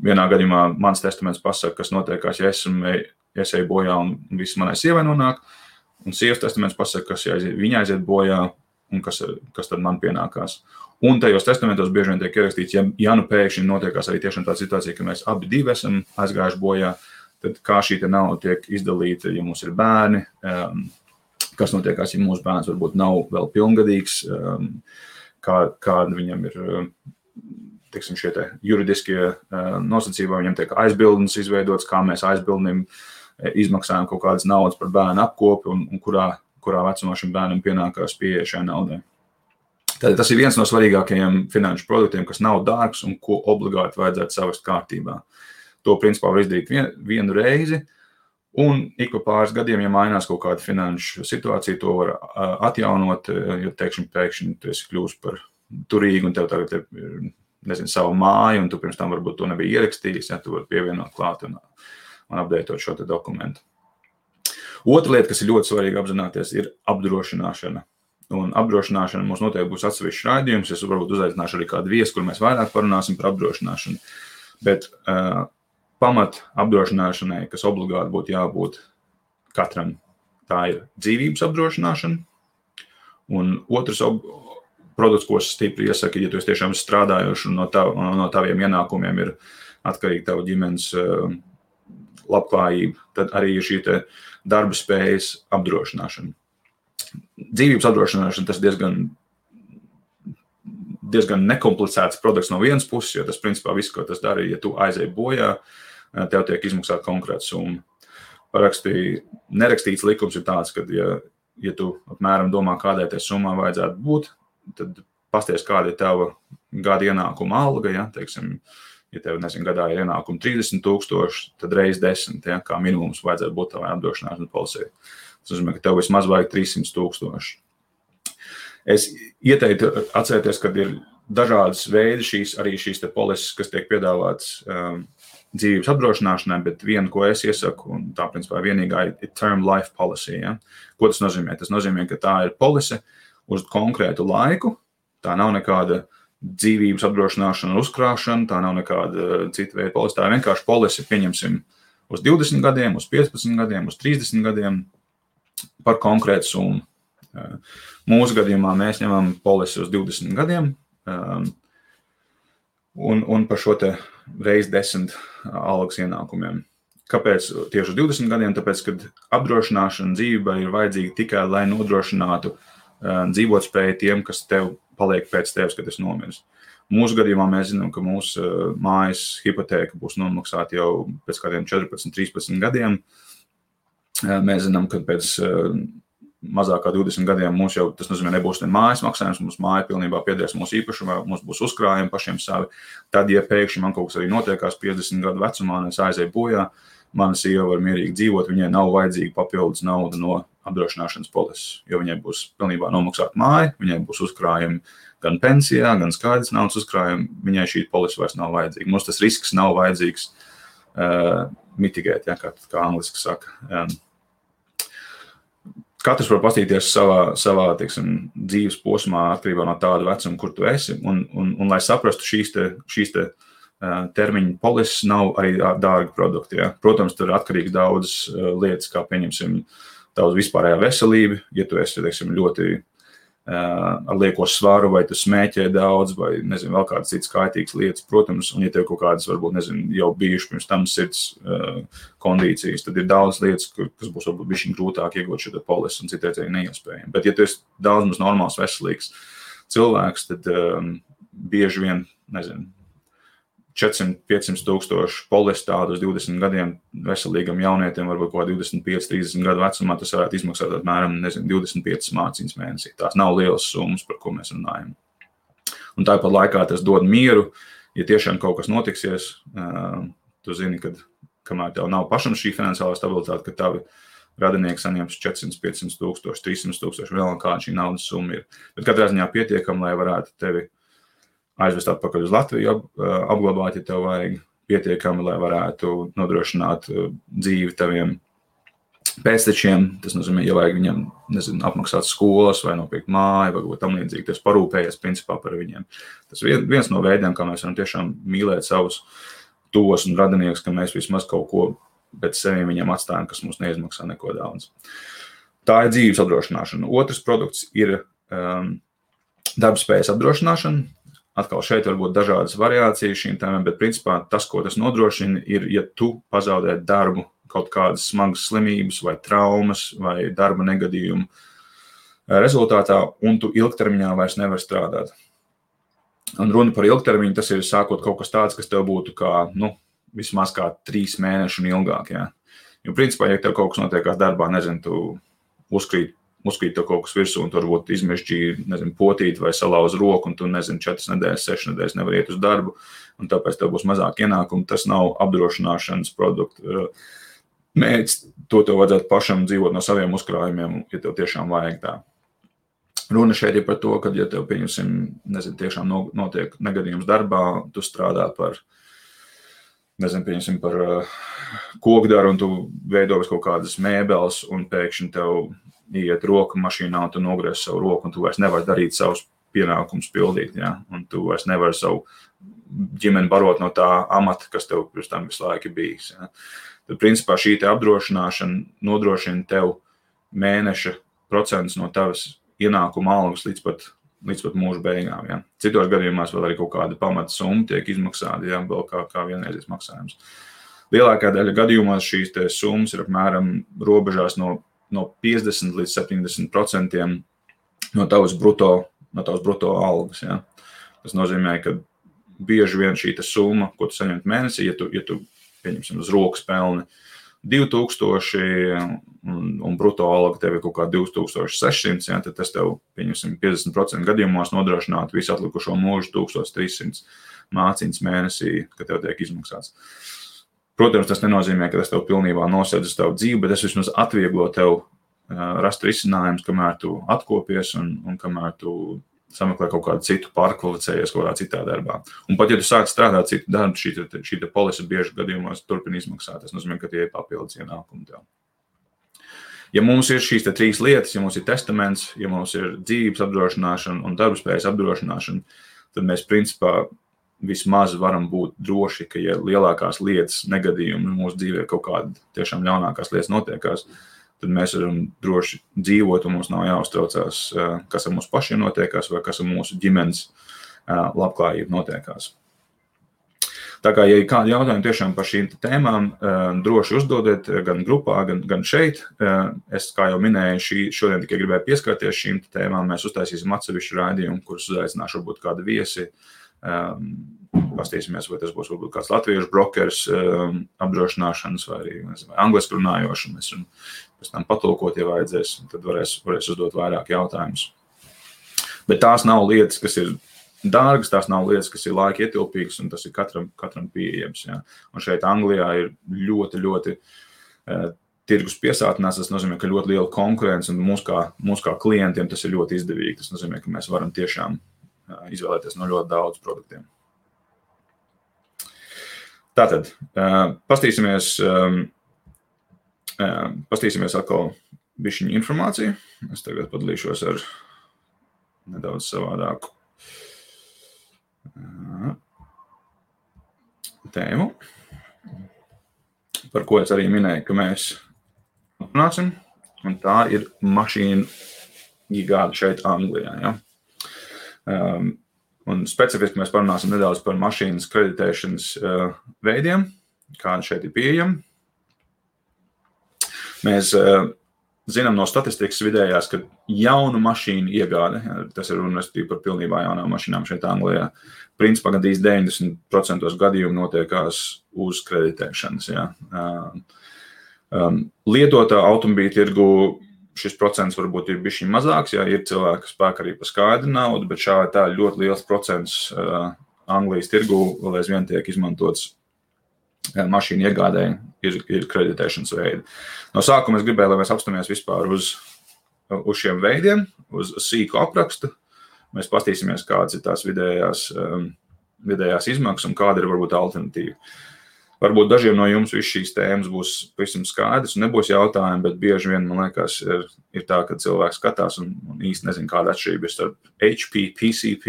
Vienā gadījumā mans testaments pasaka, kas notiekās, ja es eju bojā un viss manai sievai nonāk, un sievas testaments pasaka, kas viņa aiziet bojā un kas tad man pienākās. Un tajos testamentos bieži vien tiek ierakstīts, ja nu pēkšņi notiekās arī tiešām tā situācija, ka mēs abi divi esam aizgājuši bojā, tad kā šī nauda tiek izdalīta, ja mums ir bērni, kas notiekās, ja mūsu bērns varbūt nav vēl pilngadīgs, kāda viņam ir, teiksim, šie te juridiskie nosacījumi, viņam tiek aizbildnis izveidots, kā mēs aizbildnim izmaksājam kaut kādas naudas par bērnu apkopi un kurā vecumā šim bērnam pienākās pieeja šai naudai. Tad tas ir viens no svarīgākajiem finanšu produktiem, kas nav dārgs un ko obligāti vajadzētu savest kārtībā. To principā var izdarīt vienu reizi, un ik pa pāris gadiem, ja mainās kaut kāda finanšu situācija, to var atjaunot, jo pēkšņi tu esi kļūst par turīgu un tev tagad ir, savu māju, un tu pirms tam varbūt to nebija ierakstījis, ja tu vari pievienot klāt un updateot šo te dokumentu. Otra lieta, kas ir ļoti svarīga apzināties, ir apdrošināšana. Un apdrošināšana mums noteikti būs atsevišķs raidījums, es varbūt uzaicināšu arī kādu viesu, kur mēs vairāk parunāsim par apdrošināšanu. Bet pamat apdrošināšanai, kas obligāti būtu jābūt katram, tā ir dzīvības apdrošināšana. Un otrs produkts, ko es stipri iesaku, ja tu esi tiešām strādājoši un no taviem ienākumiem ir atkarīgi tavu ģimenes labklājība, tad arī ir šī te darba spējas apdrošināšana. Dzīvības apdrošināšana tas diezgan nekomplicēts produkts no vienas puses, jo tas principā viss, ko tas dara, ja tu aizej bojā, tev tiek izmaksāta konkrēta summa. Nerakstīts likums ir tāds, ka ja tu apmēram domā, kādai tai summā vajadzētu būt, tad pasties, kāda ir tava gada ienākuma alga, ja, teiksim, ja tev, gadā ir ienākuma 30,000, tad reiz 10, ja, kā minimums vajadzētu būt tavai apdrošināšanas polisei. Tas nozīmē, ka tev vismaz vajag 300,000. Es ieteiktu atcerēties, ka ir dažādas veidi šīs te polises, kas tiek piedāvāts dzīvības apdrošināšanai, bet viena, ko es iesaku, un tā principā vienīgā ir term life policy. Ja? Ko tas nozīmē? Tas nozīmē, ka tā ir polise uz konkrētu laiku, tā nav nekāda dzīvības apdrošināšana uzkrāšana, tā nav nekāda cita veida polise, tā ir vienkārši polise, pieņemsim, uz 20 gadiem, uz 15 gadiem, uz 30 gadiem, par konkrētu summu. Mūsu gadījumā mēs ņemam polisi uz 20 gadiem un par šo te reiz 10 algas ienākumiem. Kāpēc tieši uz 20 gadiem? Tāpēc, kad apdrošināšana dzīvībai ir vajadzīga tikai, lai nodrošinātu dzīvotspēju tiem, kas tev paliek pēc tevis, kad esi nomiris. Mūsu gadījumā mēs zinām, ka mūsu mājas hipotēka būs nomaksāta jau pēc kādiem 14, 13 gadiem. Mēs zinām, ka pēc mazāk kā 20 gadiem mums jau, tas nozīmē, nebūs ne mājas maksājums, mums māja pilnībā piederēs mūsu īpašumā, mums būs uzkrājumi pašiem savi. Tad, ja pēkšņi man kaut kas arī notiekās 50 gadu vecumā, un es aizēju bojā, mana sieva var mierīgi dzīvot, viņai nav vajadzīga papildus nauda no apdrošināšanas polises, jo viņai būs pilnībā nomaksāta māja, viņai būs uzkrājumi gan pensijā, gan skaidrs naudas uzkrājumi, viņai šī polise vairs nav vajadzīga. Mums tas risks nav vajadzīgs mitigēt, ja, kā angliski saka. Katrs var paskatīties savā teiksim, dzīves posmā atkarībā no tāda vecuma, kur tu esi, un lai saprastu šīs te termiņu polises nav arī dārgi produkti. Ja. Protams, tur ir atkarīgs daudzas lietas, kā pieņemsim tavs vispārējā veselība, ja tu esi, teiksim, ļoti ar lieko svaru, vai tu smēķē daudz, vai, nezinu, vēl kādas citas kaitīgas lietas, protams, un ja tev kaut kādas, varbūt, nezinu, jau bijuši pirms tam sirds kondīcijas, tad ir daudz lietas, kas būs varbūt bišķiņ grūtāk iegūt šo polisi un citreiz arī neiespējami. Bet, ja tu esi daudz maz normāls, veselīgs cilvēks, tad bieži vien, nezinu, 400-500 tūkstoši polisi tādu uz 20 gadiem veselīgam jaunietim, varbūt kaut 25-30 gadu vecumā, tas varētu izmaksāt apmēram, nezinu, 25 mācības mēnesī. Tās nav lielas summas, par ko mēs runājam. Un tāpat laikā tas dod mieru, ja tiešām kaut kas notiksies, tu zini, ka kamēr tev nav pašam šī finansiālā stabilitāte, ka tavi radinieki saņems 400-500 tūkstoši, 300 tūkstoši, vēl kāda šī naudas summa ir. Bet katrā ziņā pietiekam, lai varētu tevi aizvest atpakaļ uz Latviju, apglabāt, ja tev vajag pietiekami, lai varētu nodrošināt dzīvi taviem pēctečiem. Tas nozīmē, ja vajag viņam, nezinu, apmaksāt skolas vai nopirkt māju, vai tam līdzīgi, tas parūpējies principā par viņiem. Tas viens no veidiem, kā mēs varam tiešām mīlēt savus tuvos un radiniekus, ka mēs vismaz kaut ko pēc seviem viņiem atstājam, kas mums neizmaksā neko daudz. Tā ir dzīves apdrošināšana. Otrs produkts ir darbspējas apdrošināšana. Atkal šeit var būt dažādas variācijas šīm tēmām, bet principā tas, ko tas nodrošina, ir, ja tu pazaudē darbu, kaut kādas smagas slimības vai traumas vai darba negadījumu rezultātā, un tu ilgtermiņā vairs nevar strādāt. Un runa par ilgtermiņu, tas ir sākot kaut kas tāds, kas tev būtu kā, vismaz kā 3 mēneši un ilgāk, jā. Jo principā, ja tev kaut kas notiekās darbā, nezinu, tu uzkrīt tev kaut kas virsū, un tu varbūt izmežģīji, potīt vai salauz roku, un tu, 4 nedēļas, 6 nedēļas nevar iet uz darbu, un tāpēc tev būs mazāk ienākumu. Tas nav apdrošināšanas produktu mērķis. To tev vajadzētu pašam dzīvot no saviem uzkrājumiem, ja tev tiešām vajag tā. Runa šeit ir par to, ka, ja tev, tiešām notiek negadījums darbā, tu strādā par kokdaru, un tu veido kaut kādas mēbeles, un pēkšņi tev iet roka mašīnā, un tu nogriez savu roku, un tu vairs nevari darīt savus pienākumus pildīt, ja? Un tu vairs nevari savu ģimeni barot no tā amata, kas tev pirms tam visu laiku bijis. Ja? Tad, principā, šī te apdrošināšana nodrošina tev mēneša procents no tavas ienākuma algas līdz pat mūža beigām. Ja? Citos gadījumās vēl arī kaut kāda pamata summa tiek izmaksāta, ja? Vēl kā vienreizes maksājums. Lielākā daļa gadījumās šīs te summas ir apmēram robežās no 50 līdz 70% no tavas bruto algas. Ja? Tas nozīmē, ka bieži vien šī summa, ko tu saņemt mēnesī, ja tu pieņemsim uz rokas pelni 2000 un bruto alga tev ir kaut kā 2600, ja, tad tas tev, pieņemsim, 50% gadījumos nodrošinātu visu atlikušo mūžu 1300 māciņas mēnesī, kad tev tiek izmaksāts. Protams, tas nenozīmē, ka tas tev pilnībā nosēdz tavu dzīvi, bet tas vismaz atvieglo tev rast risinājumus, kamēr tu atkopies un kamēr tu sameklē kaut kādu citu pārkvalificējies kaut kādā citā darbā. Un pat, ja tu sāc strādāt citu darbu, šī polise bieži gadījumos turpina izmaksāt. Tas nozīmē, ka tie ir papildus ienākumi tev. Ja mums ir šīs 3 lietas, ja mums ir testaments, ja mums ir dzīves apdrošināšana un darbspējas apdrošināšana, tad mēs principā vismaz varam būt droši, ka, ja lielākās lietas negadījumi mūsu dzīvē kaut kāda tiešām ļaunākās lietas notiekās, tad mēs varam droši dzīvot un mums nav jāuztraucās, kas ar mūsu pašiem notiekās vai kas ar mūsu ģimenes labklājību notiekās. Tā kā, ja ir kādi jautājumi tiešām par šīm tēmām, droši uzdodiet gan grupā, gan šeit. Es, kā jau minēju, šodien tikai gribēju pieskarties šīm tēmām. Mēs uztaisīsim atsevišķu raidījumu, kurus uzaicināšu varbūt kādu viesi. Pastīsimies, vai tas būs varbūt kāds latviešu brokers apdrošināšanas vai arī angliski runājoši. Mēs varam pēc tam patulkot, ja vajadzēs, tad varēs uzdot vairāk jautājumus. Bet tās nav lietas, kas ir dārgas, tās nav lietas, kas ir laika ietilpīgas, un tas ir katram pieejams. Ja? Un šeit Anglijā ir ļoti tirgus piesātinās, tas nozīmē, ka ļoti liela konkurence, un mūs kā klientiem tas ir ļoti izdevīgi. Tas nozīmē, ka mēs varam tiešām izvēlēties no ļoti daudz produktiem. Tātad, pastīsimies atkal bišķiņu informāciju. Es tagad padalīšos ar nedaudz savādāku tēmu, par ko es arī minēju, ka mēs runāsim, un tā ir mašīnu gigāda šeit Anglijā. Ja? Un specifiski mēs parunāsim nedaudz par mašīnas kreditēšanas veidiem, kādi šeit ir pieejami. Mēs zinām no statistikas vidējās, ka jaunu mašīnu iegāde, tas ir runa par pilnībā jaunām mašīnām šeit Anglijā, principā gandrīz 90% gadījumu notiekās uz kreditēšanas. Ja. Lietotā automobīļu tirgu šis procents varbūt ir bišķiņ mazāks, ja ir cilvēki, kas pērk arī par skaidru naudu, bet šādi tā ļoti liels procents Anglijas tirgu vēl aizvien tiek izmantots mašīnu iegādēji ir kreditēšanas veidi. No sākuma es gribēju, lai mēs apstāmies vispār uz šiem veidiem, uz sīku aprakstu. Mēs pastīsimies, kādas ir tās vidējās izmaksas un kāda ir varbūt alternatīva. Varbūt dažiem no jums viss šīs tēmas būs pavisam skaidrs un nebūs jautājumi, bet bieži vien, man liekas, ir tā, ka cilvēks skatās un īsti nezin, kāda atšķirība ir starp HP, PCP,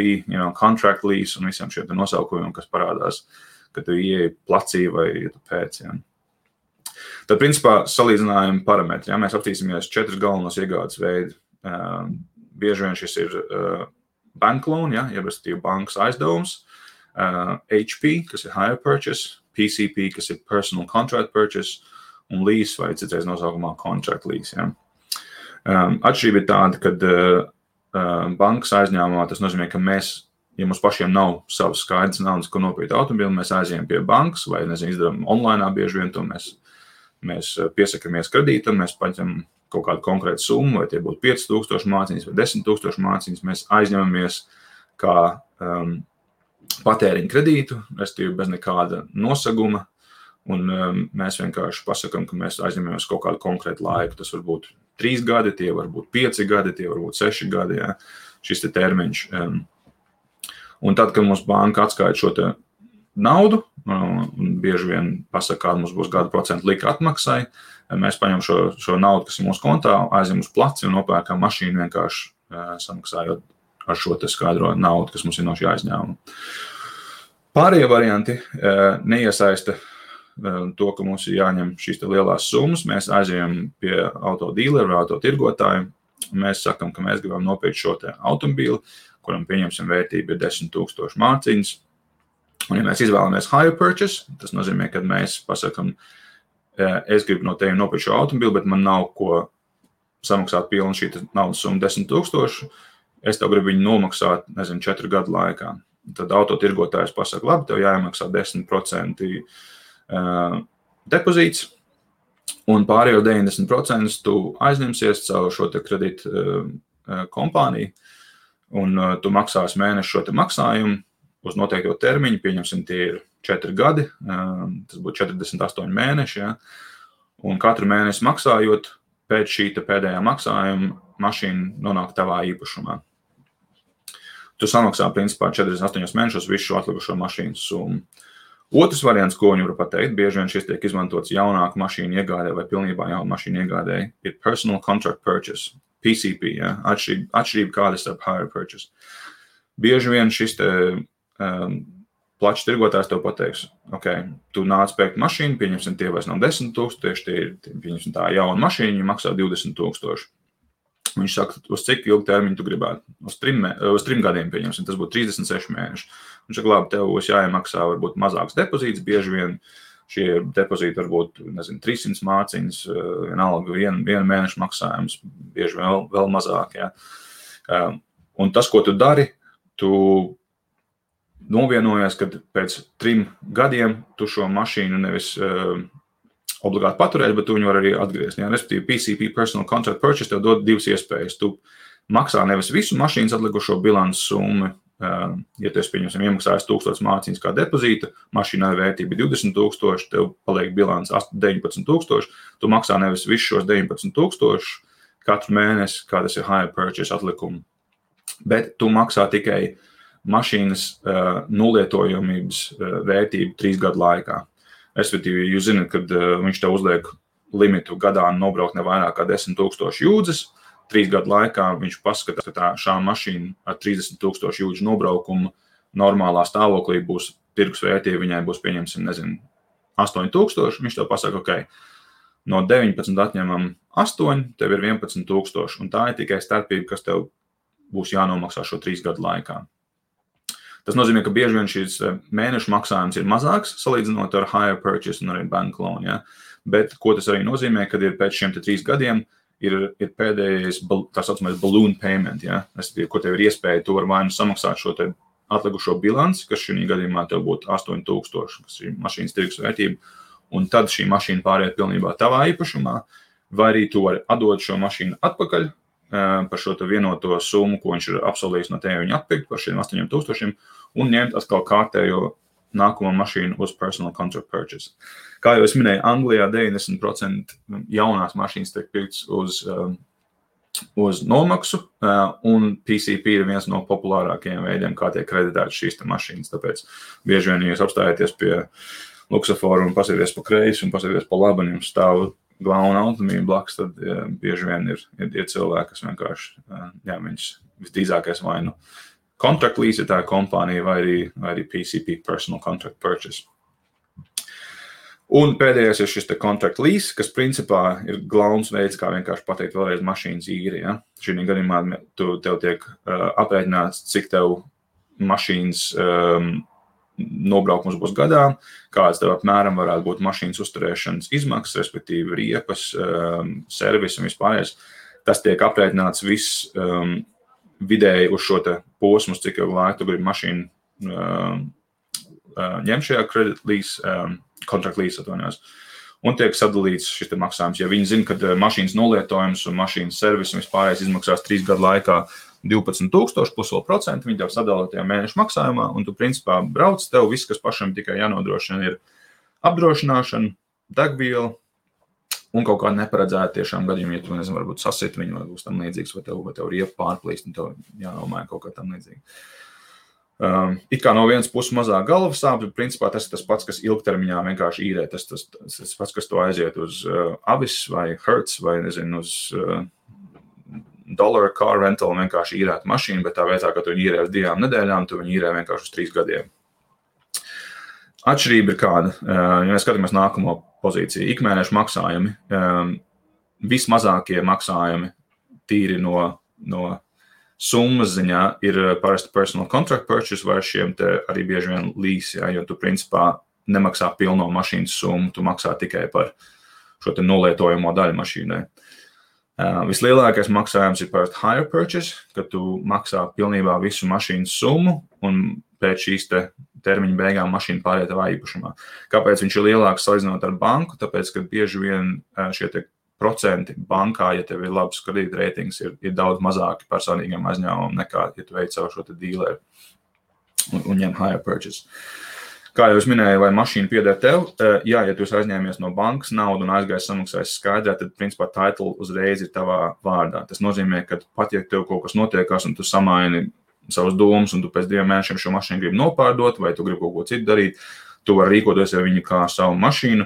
contract lease un visiem šiem nosaukumiem, kas parādās, kad tu ieeji placī vai ja tu pēc. Ja. Tad, principā, salīdzinājumi parametri. Ja, mēs aptīsimies 4 galvenos iegādes veidi. Bieži vien šis ir bank loan, ja, jeb respektīvi bankas aizdevums, HP, kas ir hire purchase, PCP, kas ir personal contract purchase, un lease vai citreiz nosaukumā contract lease. Ja. Atšķirība ir tāda, ka bankas aizņēmumā tas nozīmē, ka mēs, ja mums pašiem nav savas skaidrs naudas, ko nopirkt automobili, mēs aizējam pie bankas vai, izdarām online bieži vien to mēs piesakamies kredītam, mēs paņem kaut kādu konkrētu summu, vai tie būtu 5000 mārciņas vai 10,000 mārciņas, mēs aizņemamies kā patēriņu kredītu, respektīvi bez nekāda nosaguma, un mēs vienkārši pasakam, ka mēs aizņemamies kaut kādu konkrētu laiku. Tas var būt 3 gadi, tie var būt 5 gadi, tie var būt 6 gadi, ja, šis te termiņš. Un tad, kad mums banka atskaita šo te naudu, un bieži vien pasaka, kāda mums būs gada procentu lika atmaksai, mēs paņem šo naudu, kas ir mūsu kontā, aizjam uz placi un nopērkam mašīnu vienkārši samaksājot ar šo te skaidro naudu, kas mums ir no šī aizņēmuma. Pārējie varianti neiesaista to, ka mums ir jāņem šīs te lielās summas. Mēs aizējam pie autodīleru vai autotirgotāju. Mēs sakam, ka mēs gribam nopirkt šo te automobīli, kuram pieņemsim vērtību ir 10,000 mārciņas. Un ja mēs izvēlamies hire purchase, tas nozīmē, ka mēs pasakam, es gribu no tevi nopirkt šo automobīli, bet man nav ko samaksāt pilnu šī naudas summa 10,000. Es tev gribu viņu nomaksāt, 4 gadu laikā. Tad autotirgotājs pasaka, labi, tev jāiemaksā 10% depozīts, un pārējo 90% tu aizņemsies caur šo te kredītu kompāniju, un tu maksās mēnešu šo te maksājumu uz noteikto termiņu, pieņemsim, tie ir 4 gadi, tas būtu 48 mēneši, ja? Un katru mēnesi maksājot, pēc šī pēdējā maksājuma mašīna nonāk tavā īpašumā. Tu samaksā, principā, 48 mēnešos visu šo atlikušo mašīnas summu. Otrs variants, ko viņi var pateikt, bieži vien šis tiek izmantots jaunāku mašīnu iegādē vai pilnībā jaunu mašīnu iegādē, ir personal contract purchase, PCP, ja? Atšķirība kāda starp hire purchase. Bieži vien šis te plačs tirgotājs tev pateiks, ok, tu nāc pērkt mašīnu, pieņemsim, tie vairs nav 10,000, tieši tie ir, pieņemsim, tā jauna mašīna, viņa maksā 20,000. Viņš saka, uz cik ilgu termiņu tu gribētu? Uz 3 gadiem, pieņemsim, tas būtu 36 mēneši. Viņš saka, labi, tev būs jāiemaksā varbūt mazāks depozīts, bieži vien šie depozīti varbūt, 300 mārciņas, vienalga viena mēneša maksājums, bieži vēl mazāk, ja. Un tas, ko tu dari, tu novienojies, kad pēc 3 gadiem tu šo mašīnu nevis obligāti paturēt, bet tu viņu var arī atgriezt. Ja? Respektīvi, PCP, Personal Contract Purchase, tev dod 2 iespējas. Tu maksā nevis visu mašīnas atlikušo bilances summu, ja tu esi, pieņemsim, iemaksājis 1000 mārciņas kā depozīta, mašīnai vērtība 20,000, tev paliek bilants 19,000, tu maksā nevis visu šos 19,000 katru mēnesi, kā tas ir hire purchase atlikumu, bet tu maksā tikai mašīnas nulietojamības vērtību 3 gadu laikā. Respektīvi, jūs zināt, kad viņš tev uzliek limitu gadā nobraukt ne vairāk kā 10,000 jūdzes, 3 gadu laikā viņš paskatās, ka šā mašīna ar 30,000 jūdžu nobraukumu normālā stāvoklī būs tirgus vērtība, viņai būs, pieņemsim, 8,000, viņš tev pasaka, ok, no 19 atņemam 8, tev ir 11,000, un tā ir tikai starpība, kas tev būs jānomaksā šo 3 gadu laikā. Tas nozīmē, ka bieži vien šīs mēnešu maksājums ir mazāks, salīdzinot ar hire purchase un arī bank loan, ja? Bet ko tas arī nozīmē, kad ir pēc šiem 3 gadiem ir pēdējais, tā saucamais balloon payment, ja? Ko tev ir iespēja, tu var vai nu samaksāt šo te atlikušo bilanci, kas šī gadījumā tev būtu 8,000, kas ir mašīnas tirgus vērtība, un tad šī mašīna pāriet pilnībā tavā īpašumā, vai arī tu vari atdot šo mašīnu atpakaļ, par šo vienoto summu, ko viņš ir apsolījis no tevi viņu atpirkt par šiem 8,000 un ņemt atkal kārtējo nākamo mašīnu uz personal contract purchase. Kā jau es minēju, Anglijā 90% jaunās mašīnas tiek pirkts uz nomaksu, un PCP ir viens no populārākajiem veidiem, kā tiek kreditētas šīs mašīnas. Tāpēc bieži vien, ja jūs apstājaties pie luksaforu un pasieties pa kreisi un pasieties pa labi, un jums stāv glauna automobīļa blakus, tad bieži vien ir cilvēki, kas vienkārši, viņš visdrīzākais vai nu contract lease, tā kompānija, vai arī PCP, Personal Contract Purchase. Un pēdējais ir šis te contract lease, kas principā ir glauns veids, kā vienkārši pateikt vēlreiz mašīnas īri. Ja? Šī gadījumā tev tiek aprēķināts, cik tev mašīnas nobraukums būs gadā, kāds tev apmēram varētu būt mašīnas uzturēšanas izmaksas, respektīvi riepas, servis un vispārējais. Tas tiek aprēķināts viss vidēji uz šo te posmu, cik jau laiku tu gribi mašīnu ņem šajā credit lease, contract lease atvainojos, un tiek sadalīts šis te maksājums. Ja viņi zina, ka mašīnas nolietojums un mašīnas servis un vispārējais izmaksās 3 gadu laikā 12,000 plus vēl procenti, viņi tev sadala tajā mēneša maksājumā, un tu principā brauc, tev viss, kas pašam tikai jānodrošina, ir apdrošināšana, degviela un kaut kāda neparedzēta tiešām gadījumi, ja tu, nezinu, varbūt sasit viņu, vai būs tam līdzīgs, vai tev riepa pārplīst, un tev jānomāja kaut kā tam līdzīgi. It kā no vienas puses mazāk galvas sāp, bet principā tas ir tas pats, kas ilgtermiņā vienkārši īrē, tas pats, kas to aiziet uz Avis vai Hertz vai, nezinu, uz dollar car rental vienkārši īrēt mašīnu, bet tā vietā, ka tu viņu īrē uz 2 nedēļām, tu viņu īrē vienkārši uz 3 gadiem. Atšķirība ir kāda, ja mēs skatāmies nākamo pozīciju, ikmēneša maksājumi, vismazākie maksājumi tīri no summas ziņā ir parasti personal contract purchase vai šiem te arī bieži vien lease, ja, jo tu principā nemaksā pilno mašīnas summu, tu maksā tikai par šo te nolietojamo daļu mašīnai. Vislielākais maksājums ir parasti hire purchase, kad tu maksā pilnībā visu mašīnas summu un pēc šīs te termiņa beigām mašīna pāriet tavā īpašumā. Kāpēc viņš ir lielāks salīdzinot ar banku? Tāpēc, ka bieži vien šie te procenti bankā, ja tev ir labs kredītreitings, ir daudz mazāki personīgiem aizņēmumiem nekā, ja tu veic savu šo te dealeru un ņem hire purchase. Kā jau es minēju, vai mašīna pieder tev, jā, ja tu esi aizņēmies no bankas naudu un aizgājis samaksājis skaidrā, tad principā title uzreiz ir tavā vārdā. Tas nozīmē, ka pat ja tev kaut kas notiekās un tu samaini savus domas un tu pēc 2 mēnešiem šo mašīnu gribi nopārdot vai tu gribi kaut ko citu darīt, tu vari rīkoties ar viņu kā savu mašīnu.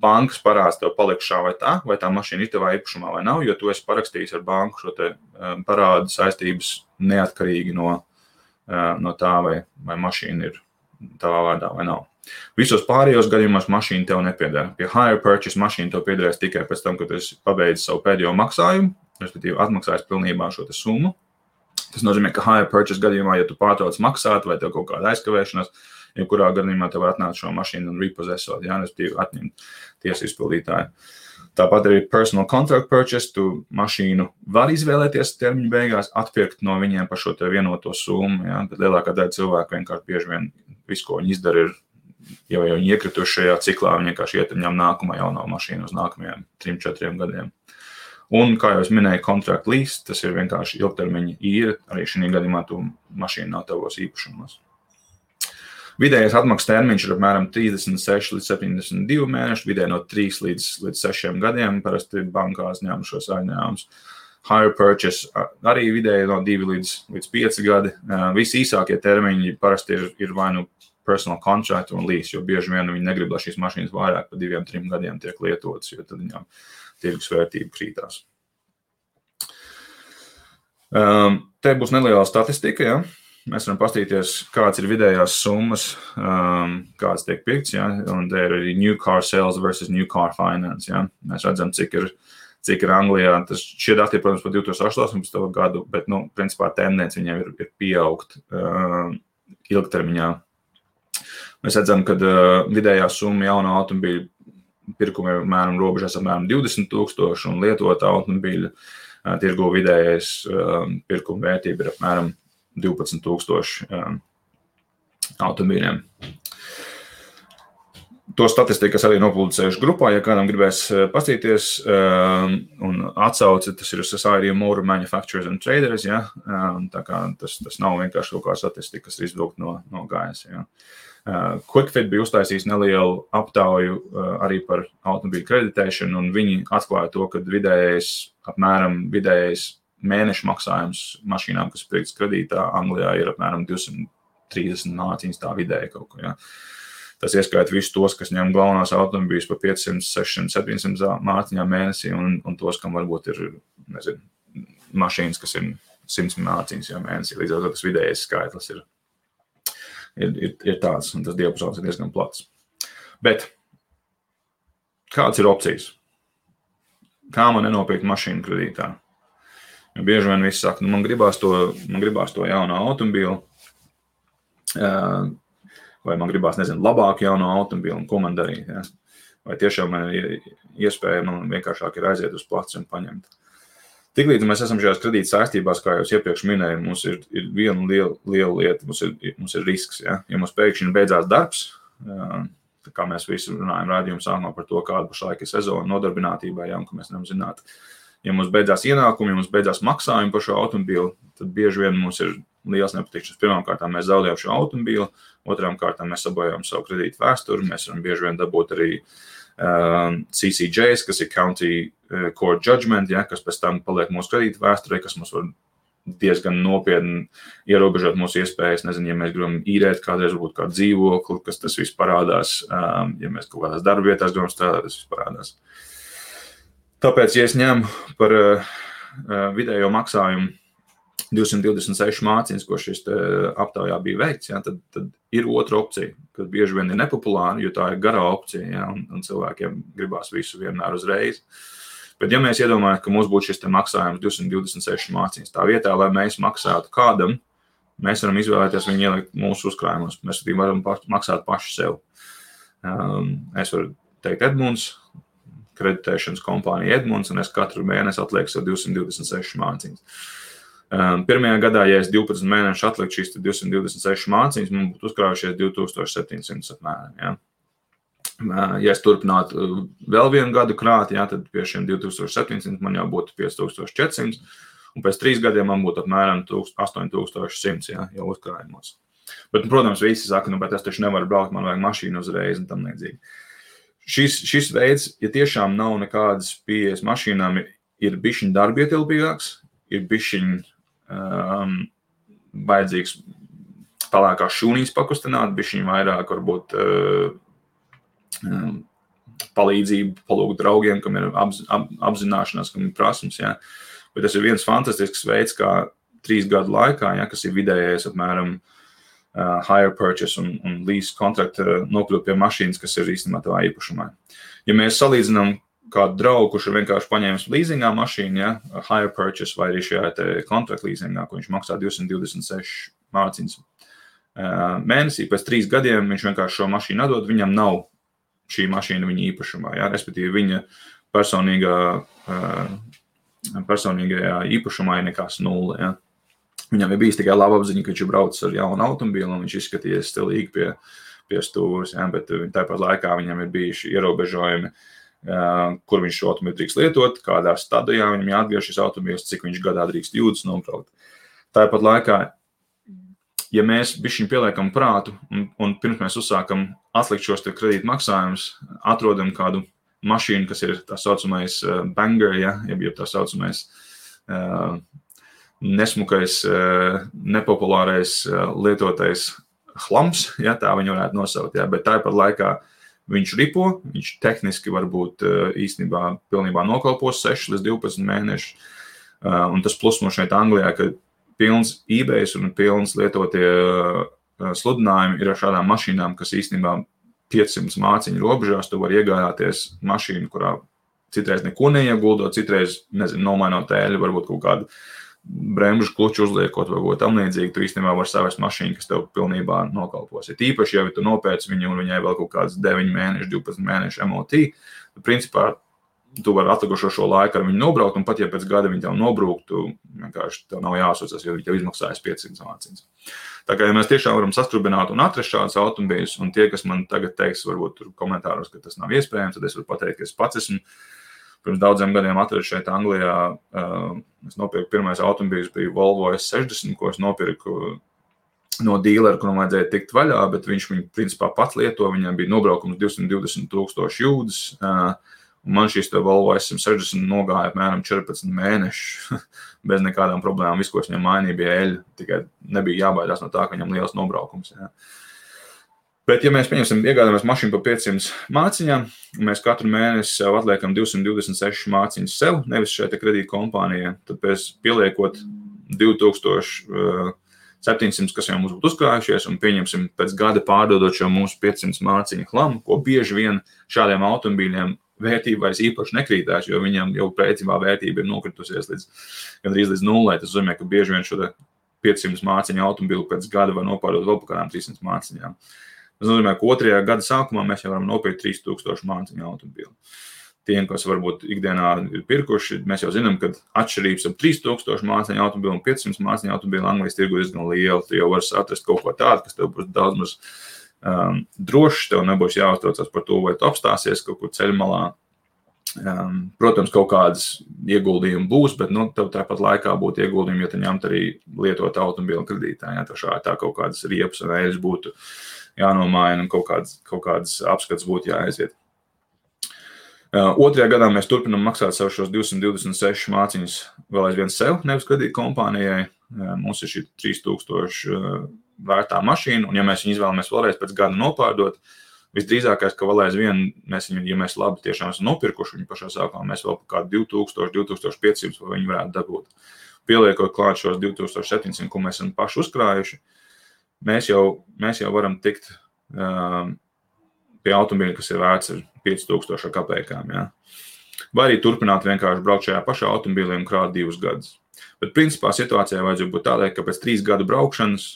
Bankas parāds tev paliks šā vai tā mašīna ir tavā īpašumā vai nav, jo tu esi parakstījis ar banku šo te parādu saistības neatkarīgi no tā, vai mašīna ir tavā vārdā vai nav. Visos pārējos gadījumos mašīna tev nepieder. Pie hire purchase mašīna tev piederēs tikai pēc tam, kad tu esi pabeidzis savu pēdējo maksājumu, respektīvi atmaksājis pilnībā šo te summu. Tas nozīmē, ka hire purchase gadījumā, ja tu pārtrauc maksāt vai tev kaut kāda aizkavēšanās, jebkurā gadījumā tev var atnākt šo mašīnu un repossessot, ja, respektīvi atņemt tiesu izpildītāju. Tāpat arī personal contract purchase, tu mašīnu var izvēlēties termiņu beigās, atpirkt no viņiem par šo te vienoto summu, ja, bet lielākā daļa cilvēku vienkārši bieži vien visu, ko viņi izdara, ir, ja jau viņi iekrituši šajā ciklā, viņi vienkārši iet un ņem nākamā jauno mašīnu uz nākamajiem 3-4 gadiem. Un, kā jau es minēju, contract lease, tas ir vienkārši ilgtermiņa īre, arī šī gadījumā tu mašīna nav tavos īpašumos. Vidējais atmaksas termiņš ir apmēram 36 līdz 72 mēneši, vidēji no 3 līdz 6 gadiem, parasti bankās ņem šos aizņēmumus. Hire purchase arī vidēji no 2 līdz 5 gadi. Visi īsākie termiņi parasti ir vai nu personal contract un lease, jo bieži vien viņi negrib, lai šīs mašīnas vairāk par 2-3 gadiem tiek lietotas, jo tad viņām tirgus vērtība krītās. Te būs neliela statistika, ja? Mēs varam paskatīties, kāds ir vidējās summas, kāds tiek pirkts, ja? Un te ir arī new car sales versus new car finance. Ja? Mēs redzam, cik ir Anglijā. Šie dati, protams, par 2018. gadu, bet, principā, tendence viņiem ir pieaugt ilgtermiņā. Mēs redzam, ka vidējā summa jauna automobīļa pirkuma ir robežās apmēram 20,000 un lietota automobīļa tirgu vidējais pirkuma vērtība ir apmēram 12,000 automobīļiem. To statistiku es arī nopublicējuši grupā, ja kādam gribēs paskatīties un atsauci, tas ir Society of Motor Manufacturers and Traders, ja? Tā kā tas nav vienkārši kaut kā statistika, kas ir izvilkt no gaisa. Ja? QuickFit bija uztaisījis nelielu aptauju arī par automobīļu kreditēšanu, un viņi atklāja to, ka vidējais mēneša maksājums mašīnām, kas pirktas kredītā Anglijā, ir apmēram 230 mārciņas tā vidēji kaut ko. Ja? Tas ieskaita visus tos, kas ņem galvenās automobīļus par 500, 600, 700 mārciņām mēnesī, un tos, kam varbūt ir, mašīnas, kas ir 100 mārciņas mēnesī. Līdz ar to tas vidējais skaitlis ir tāds, un tas diapazons ir diezgan plats. Bet kādas ir opcijas? Kā man nenopirkt mašīnu kredītā? Jo bieži vien visi saka, man gribās to jaunu automobīlu, vai man gribās, labāku jaunu automobīlu, un ko man darīt. Ja? Vai tiešām man ir iespēja, man vienkāršāk ir aiziet uz placu un paņemt. Tiklīdz mēs esam šajās kredīta saistībās, kā jau iepriekš minēju, mums ir viena liela lieta, mums ir risks. Ja, ja mums pēkšņi beidzās darbs, kā mēs visi runājam rādījumu sākumā par to, kāda pašlaik ir sezona nodarbinātībā, ja, un ka mēs nevaram zināt. Ja mums beidzās ienākumi, ja mums beidzās maksājumi par šo automobīlu, tad bieži vien mums ir liels nepatikšanas. Pirmām kārtām mēs zaudējam šo automobīlu, otrām kārtām mēs sabojājam savu kredītu vēsturi, mēs varam bieži vien dabūt arī CCJs, kas ir County Court Judgment, ja, kas pēc tam paliek mūsu kredītu vēsturē, kas mums var diezgan nopietni ierobežot mūsu iespējas. Nezinu, ja mēs gribam īrēt kādreiz varbūt kādu dzīvokli, kas tas viss parādās, ja mēs kaut kādās darba vietās gribam strādāt, tas viss parādās. Tāpēc, ja es ņemu par vidējo maksājumu 226 mācības, ko šis aptaujā bija veikts, ja, tad ir otra opcija, kas bieži vien ir nepopulāra, jo tā ir garā opcija, ja, un cilvēkiem gribās visu vienmēr uzreiz. Bet ja mēs iedomājam, ka mums būtu šis maksājums 226 mācības, tā vietā, lai mēs maksātu kādam, mēs varam izvēlēties viņu ielikt mūsu uzkrājumos. Mēs varam maksāt paši sev. Es varu teikt Edmunds, kreditēšanas kompānija Edmunds, un es katru mēnesi atlieku sev 226 mācības. Pirmajā gadā, ja es 12 mēnešus atliktu šīs 226 mācības, man būtu uzkrājušies 2700 apmēram. Ja? Ja es turpinātu vēl vienu gadu krāt, ja, tad pie šiem 2700 man jau būtu 5400, un pēc 3 gadiem man būtu apmēram 8100 ja, jau uzkrājumos. Bet, protams, visi saka, bet es taču nevaru braukt, man vajag mašīnu uzreiz un tam līdzīgi. Šis veids, ja tiešām nav nekādas pieejas mašīnām, ir bišķiņ darbietilpīgāks, ir bišķiņ vajadzīgs pelēkās šūnīs pakustināt, bišķiņ vairāk varbūt palīdzību, palūgt draugiem, kam ir apzināšanās, kam ir prasmes. Ja. Bet tas ir viens fantastisks veids, kā 3 gadu laikā, ja, kas ir vidējais apmēram hire purchase un lease kontrakta nokļūt pie mašīnas, kas ir īstenībā tavā īpašumā. Ja mēs salīdzinām kādu draugu, kurš ir vienkārši paņēmis līzingā mašīnu, ja, hire purchase vai arī šajā kontrakta līzingā, ko viņš maksā 226 mācības mēnesī, pēc 3 gadiem viņš vienkārši šo mašīnu atdod, viņam nav šī mašīna viņa īpašumā, ja, respektīvi viņa personīgajā īpašumā ir nekas 0, ja. Viņam ir bijis tikai laba apziņa, ka viņš ir braucis ar jaunu automobīlu un viņš izskatījies stilīgi pie stūres, ja, bet tāpat laikā viņam ir bijuši ierobežojumi, kur viņš šo automobīlu drīkst lietot, kādā stadijā viņam jāatgriež šis automobīls, cik viņš gadā drīkst jūdas nobraukt. Tāpat laikā, ja mēs bišķiņ pieliekam prātu un pirms mēs uzsākam atlikt šos kredīta maksājumus, atrodam kādu mašīnu, kas ir tā saucamais banger, ja, jeb tā saucamais nesmukais, nepopulārais lietotais hlams, ja, tā viņu varētu nosaukt, ja, bet tāpat laikā viņš ripo, viņš tehniski varbūt īstenībā pilnībā nokalpos 6 līdz 12 mēneši. Un tas plus mums šeit Anglijā, ka pilns eBays un pilns lietotie sludinājumi ir ar šādām mašīnām, kas īstenībā 500 māciņu robežās, tu vari iegādāties mašīnu, kurā citreiz neko neieguldot, citreiz, nomainot tēļu, varbūt kaut kādu bremžu kluču uzliekot vai ko tam līdzīgi, tu īstenībā var savest mašīnu, kas tev pilnībā nokalpos. Ja tīpaši, ja tu nopēc viņu un viņai vēl kaut kāds 9 mēneši, 12 mēneši MOT, tad principā tu vari atlikušo šo laiku ar viņu nobraukt, un pat ja pēc gada viņi tev nobrūktu, vienkārši tev nav jāsūcas, jo viņi tev izmaksājas 500 mācības. Tā kā, ja mēs tiešām varam sastrubināt un atrast šādus automobīļus, un tie, kas man tagad teiks, varbūt tur komentāros, ka tas nav iespējams, tad es varu pateikt, ka es pats esmu pirms daudziem gadiem atradu šeit Anglijā. Es nopirku pirmais automobīls, bija Volvo S60, ko es nopirku no dīlera, kuram vajadzēja tikt vaļā, bet viņš viņu principā pats lieto, viņam bija nobraukums 220,000 jūdzes, un man šīs Volvo S60 nogāja apmēram 14 mēneši bez nekādām problēmām. Viss, ko es viņam mainīju, bija eļļa, tikai nebija jābaidās no tā, ka viņam liels nobraukums. Ja. Bet, ja mēs iegādāmies mašīnu par 500 māciņām, un mēs katru mēnesi sev atliekam 226 māciņas sev, nevis šeit kredīta kompānijā, tad pēc pieliekot 2700, kas jau mums būtu uzkrājušies, un pieņemsim pēc gada pārdodot šo mūsu 500 māciņu hlamu, ko bieži vien šādiem automobīļiem vērtība vairs īpaši nekrītās, jo viņam jau principā vērtība ir nokritusies gandrīz līdz nulē. Tas nozīmē, ka bieži vien šo 500 māciņu automobili pēc gada var nopārdot vēl par kādām 300 māciņām. Tas nozīmē, ka 2. gada sākumā mēs jau varam nopirkt 3000 māciņu automobili. Tiem, kas varbūt ikdienā ir pirkuši, mēs jau zinām, ka atšķirības ap 3000 māciņu automobili un 500 māciņu automobili Anglijas tirgu diezgan liela. Tu jau vari atrast kaut ko tādu, kas tev būs daudz maz drošs, tev nebūs jāuztraucās par to, vai tu apstāsies kaut kur ceļmalā. Protams, kaut kādas ieguldījumi būs, bet tev tāpat laikā būtu ieguldījumi, ja tu ņemt arī lietot automobili kredītā. Ja, tā kaut kādas riepas un eļas būtu jānomaina un kaut kādas apskats būtu jāaiziet. 2. gadā mēs turpinām maksāt sev šos 226 māciņas vēl aizvien sev, nevis kredīt kompānijai. Mums ir šī 3000 vērtā mašīna, un ja mēs viņu izvēlamies vēlreiz pēc gada nopārdot, visdrīzākais, ka vēl aizvien, ja mēs labi tiešām esam nopirkuši viņu pašā sākumā, mēs vēl par kādu 2000, 2500 vai viņu varētu dabūt. Pieliekot klāt šos 2700, ko mēs esam paši uzkrājuši, mēs jau varam tikt pie automobīļa, kas ir vērts 5000 kapekām. Ja? Vai arī turpināt vienkārši braukt šajā pašā automobīlī un krāt 2 gadus. Bet principā situācijai vajadzētu būt tādai, ka pēc 3 gadu braukšanas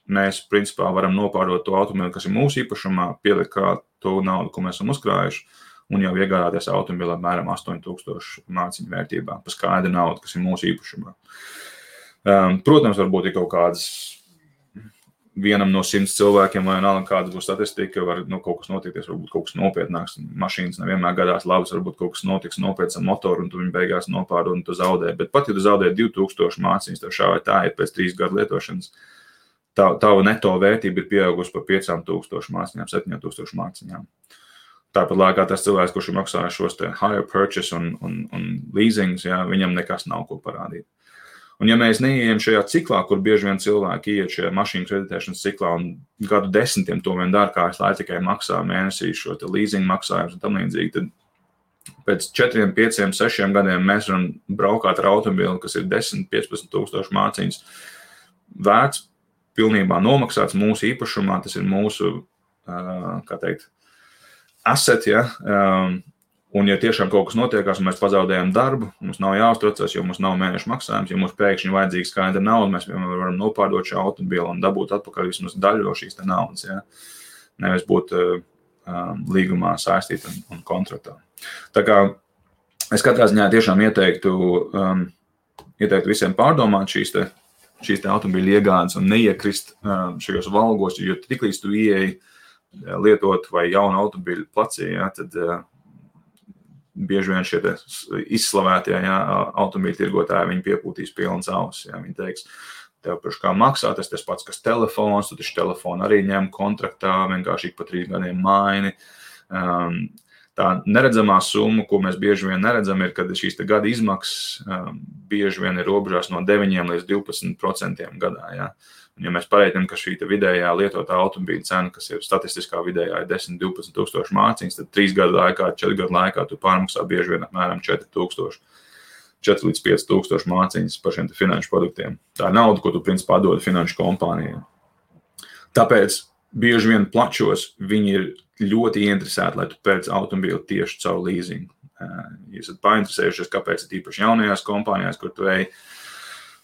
mēs principā varam nopārdot to automobīli, kas ir mūsu īpašumā, pielikt klāt to naudu, ko mēs esam uzkrājuši, un jau iegādāties automobīli apmēram 8000 māciņu vērtībā, pa skaidru naudu, kas ir mūsu īpašumā. Protams, varbūt ir kaut kādas vienam no 100 cilvēkiem, vai nav kāda būs statistika, var kaut kas notikties, varbūt kaut kas nopietnāks. Mašīnas nevienmēr gadās labas, varbūt kaut kas notiks nopietns ar motoru, un tu viņu beigās nopārdod, un tu zaudē. Bet pat, ja tu zaudē 2000 māciņas, tev šā vai tā ir pēc 3 gadu lietošanas, tava neto vērtība ir pieaugusi par 5000 māciņām, 7000 māciņām. Tāpat laikā tas cilvēks, kurš ir maksājis šos te hire purchase un leasings, ja, viņam nekas nav ko parādīt. Un ja mēs neieejam šajā ciklā, kur bieži vien cilvēki ieiet šajā mašīnu kreditēšanas ciklā un gadu desmitiem to vien dara, kā es lai tikai maksā mēnesī šo te leasing maksājumus un tam līdzīgi, tad pēc 4, 5, 6 gadiem mēs varam braukāt ar automobili, kas ir 10, 15 tūkstoši māciņas vērts, pilnībā nomaksāts mūsu īpašumā, tas ir mūsu, asset, ja, un ja tiešām kaut kas notiekās un mēs pazaudējam darbu, mums nav jāuztraucas, jo mums nav mēnešu maksājums, ja mums pēkšņi vajadzīga skaidra nauda, mēs vienmēr varam nopārdot šo automobili un dabūt atpakaļ vismaz daļu no šīs te naudas, ja? Nevis būt līgumā saistīt un kontraktā. Tā kā es katrā ziņā tiešām ieteiktu visiem pārdomāt šīs te automobīļu iegādes un neiekrist šajos valgos, jo tiklīdz tu ieeji lietot vai jaunu automobīļu placī, ja, tad bieži vien šie izslavētie automobīļu tirgotāji, viņi piepūtīs pilnas ausis. Ja, viņi teiks, tev priekš kā maksā, tas pats, kas telefons, tu taču telefonu arī ņem kontraktā, vienkārši ik pa 3 gadiem maini. Tā neredzamā summa, ko mēs bieži vien neredzam, ir, kad šīs te gada izmaksas bieži vien ir robežās no 9 līdz 12% gadā. Ja. Un ja mēs pareiķinām, ka šī vidējā lietotā automobīļa cena, kas ir statistiskā vidējā, ir 10-12 tūkstoši māciņas, tad 3 gadu laikā, 4 gadu laikā tu pārmaksā bieži vien apmēram 4 līdz 5 tūkstoši māciņas par šiem finanšu produktiem. Tā ir nauda, ko tu principā dod finanšu kompānijai. Tāpēc bieži vien plačos viņi ir ļoti interesēti, lai tu pēc automobīli tieši caur leasingu. Ja esat painteresējušies, kāpēc ir īpaši jaunajās kompānijās, kur tu ej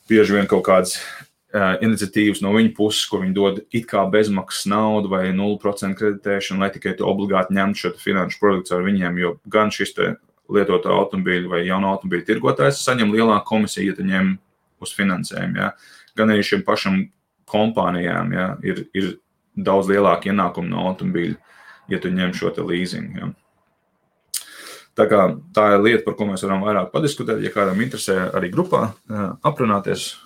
bieži vien kaut kādas iniciatīvas no viņa puses, kur viņi dod it kā bezmaksas naudu vai 0% kreditēšanu, lai tikai tu obligāti ņemtu šo finanšu produktu ar viņiem, jo gan šis te lietoto automobīļu vai jauno automobīļu tirgotājs saņem lielāku komisiju, ja tu ņem uz finansējumu, ja. Gan arī šiem pašam kompānijām, ja, ir daudz lielāki ienākumi no automobīļu, ja tu ņem šo te leasing, ja. Tā kā tā ir lieta, par ko mēs varam vairāk padiskutēt, ja kādam interesē arī grupā aprunāties,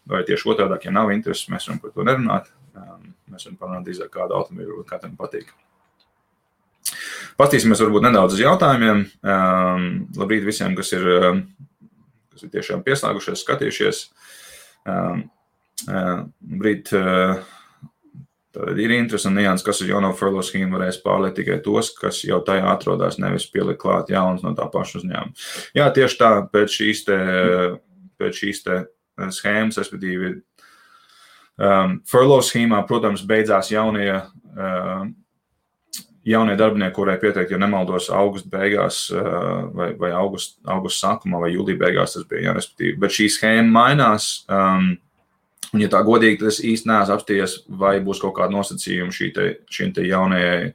vai tieši otrādāk, ja nav intereses, mēs varam par to nerunāt. Mēs varam parunāt drīzāk kādu automobīlu, vai katram patīk. Pastīsimies varbūt nedaudz uz jautājumiem. Labrīt visiem, kas ir tiešām pieslēgušies, skatījušies. Labrīt, tad ir interesi un nianses, kas uz jauno furlough schēmu varēs pārliet tikai tos, kas jau tajā atrodās, nevis pielikt klāt jaunas no tā paša uzņēmuma. Jā, tieši tā, pēc šīs te schēmas, respektīvi, furlough schēmā, protams, beidzās jaunie jaunie darbinieki, kurai pieteikt, ja nemaldos augusta beigās vai augusta sākumā vai jūlija beigās tas bija, jā, respektīvi. Bet šī schēma mainās, un ja tā godīgi, tad es īsti neesmu apstījies, vai būs kaut kāda nosacījuma šīm te jaunajai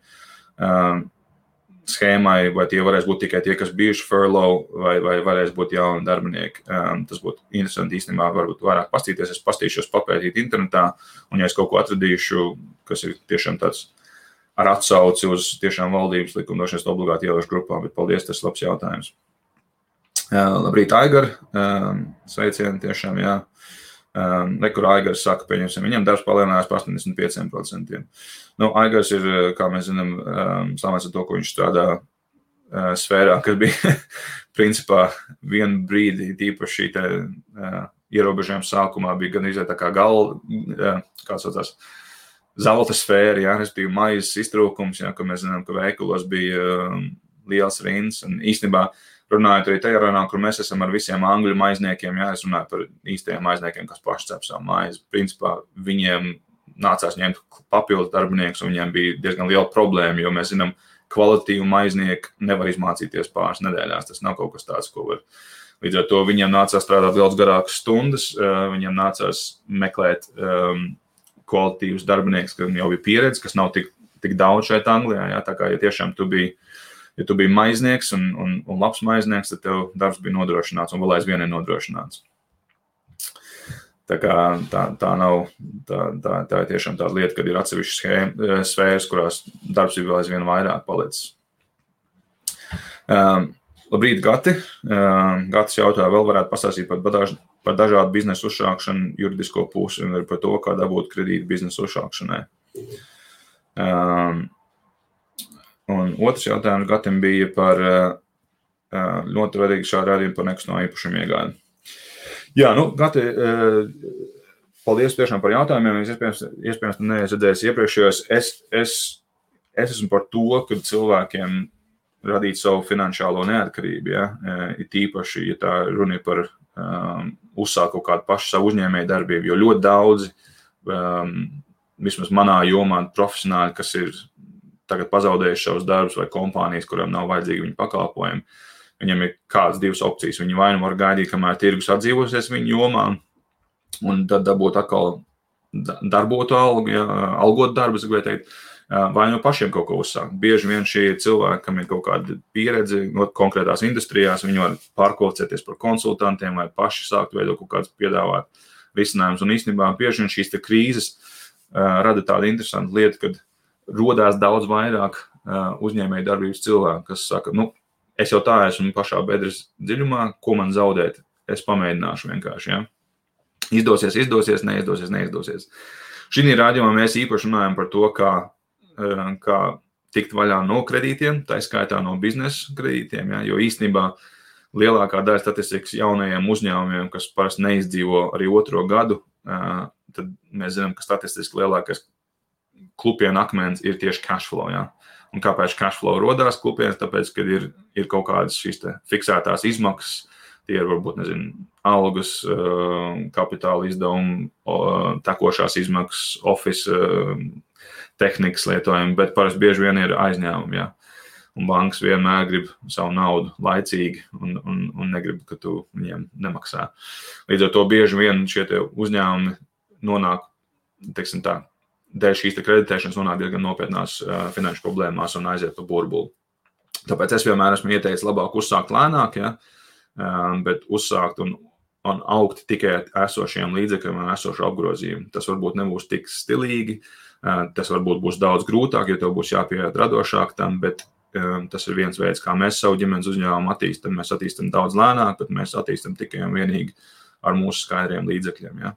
schēmai, vai tie varēs būt tikai tie, kas bijuši furlough, vai varēs būt jauni darbinieki. Tas būtu interesanti īstenībā, varbūt vairāk pastīties, es pastīšos papētīt internetā, un ja es kaut ko atradīšu, kas ir tiešām tāds ar atsauci uz tiešām valdības likumdošanas obligāti ievērošu grupā, bet paldies, tas labs jautājums. Labrīt, Aigar, sveicieni tiešām, jā. Nekur Aigars saka, pieņemsim, viņam darbs palielinājās par 85%. Nu, Aigars ir, kā mēs zinām, samēs ar to, ko viņš strādā sfērā, kas bija principā vienu brīdi, tīpaši šī te ierobežojuma sākumā bija gan izvērt tā kā kāds saucās, zelta sfēra, jā, respektīvi maizes iztrūkums, jā, ka mēs zinām, ka veikalos bija liels rinds, un īstenībā runājot arī tajā runā, kur mēs esam ar visiem angļu maizniekiem, jā, es runāju par īstajiem maizniekiem, kas paši cep savu maizi. Principā viņiem nācās ņemt papildus darbiniekus, un viņiem bija diezgan liela problēma, jo mēs zinām, kvalitīvu maiznieku nevar izmācīties pāris nedēļās, tas nav kaut kas tāds, ko var. Līdz ar to viņiem nācās strādāt daudz garākas stundas, viņiem nācās meklēt kvalitīvus darbinieks, kas jau bija pieredze, kas nav tik daudz šeit Anglijā. Jā, tā kā, ja tiešām tu biji maiznieks un labs maiznieks, tad tev darbs bija nodrošināts un vēl aizvien ir nodrošināts. Tā kā tā nav, tā ir tiešām tāda lieta, kad ir atsevišķas sfēras, kurās darbs ir vēl aizvien vairāk palicis. Labrīt, Gati. Gatis jautā, vēl varētu pastāstīt par dažādu biznesu uzsākšanu, juridisko pusi un par to, kā dabūt kredītu biznesu uzsākšanai. Un otrs jautājums Gatim bija par ļoti svarīgi šā rādījumu par nekustamo īpašumu iegādi. Jā, nu, Gati, paldies tiešām par jautājumiem. Es iespējams neesmu iepriekšējos. Es esmu par to, ka cilvēkiem radīt savu finansiālo neatkarību, ja, ir tīpaši, ja tā runa ir par uzsākt kaut kādu pašu savu uzņēmēju darbību, jo ļoti daudzi, vismaz manā jomā, profesionāļi, kas ir tagad pazaudējuši savus darbus vai kompānijas, kurām nav vajadzīgi viņu pakalpojumi, viņam ir kādas divas opcijas. Viņi vai nu var gaidīt, kamēr tirgus atdzīvosies viņu jomā, un tad dabūt atkal darbotu algu, ja, algot darbu, es gribēju teikt, vai no pašiem kaut ko uzsākt. Bieži vien šie cilvēki, kam ir kaut kāda pieredze no konkrētās industrijās, viņi var pārkvalificēties par konsultantiem vai paši sākt veidot kaut kāds piedāvāt risinājumus. Un īstenībā bieži vien šīs te krīzes rada tādu interesantu lietu, kad rodās daudz vairāk uzņēmēju darbības cilvēku, kas saka, nu, es jau tā esmu pašā bedres dziļumā, ko man zaudēt, es pamēģināšu vienkārši, ja. Izdosies, neizdosies. Šī rādījumā mēs īpaši runājam par to, kā tikt vaļā no kredītiem, tā skaitā no biznesa kredītiem, ja, jo īstenībā lielākā daļa statistikas jaunajiem uzņēmumiem, kas parasti neizdzīvo arī otro gadu, tad mēs zinām, ka statistiski lielākais klupienu akmens ir tieši cash flow. Ja. Un kāpēc cash flow rodās klupienas? Tāpēc, kad ir kaut kādas šīs fiksētās izmaksas, tie ir varbūt, algas, kapitāla izdevumi, tekošās izmaksas, office, tehnikas lietojumi, bet parasti bieži vien ir aizņēmumi, ja. Un bankas vienmēr grib savu naudu laicīgi un negrib, ka tu viņiem nemaksā. Līdz ar to bieži vien šie uzņēmumi nonāk, teiksim tā, dēļ šīs kreditēšanas nonāk diezgan nopietnās finanšu problēmās un aiziet pa burbuli. Tāpēc es vienmēr esmu ieteicis labāk uzsākt lēnāk, ja, bet uzsākt un augt tikai esošiem līdzekļiem un esošu apgrozījumu. Tas varbūt nebūs tik stilīgi, tas varbūt būs daudz grūtāk, jo tev būs jāpieiet radošāk tam, bet tas ir viens veids, kā mēs savu ģimenes uzņēmumu attīstam. Mēs attīstam daudz lēnāk, bet mēs attīstam tikai un vienīgi ar mūsu skaidriem līdzekļiem. Ja.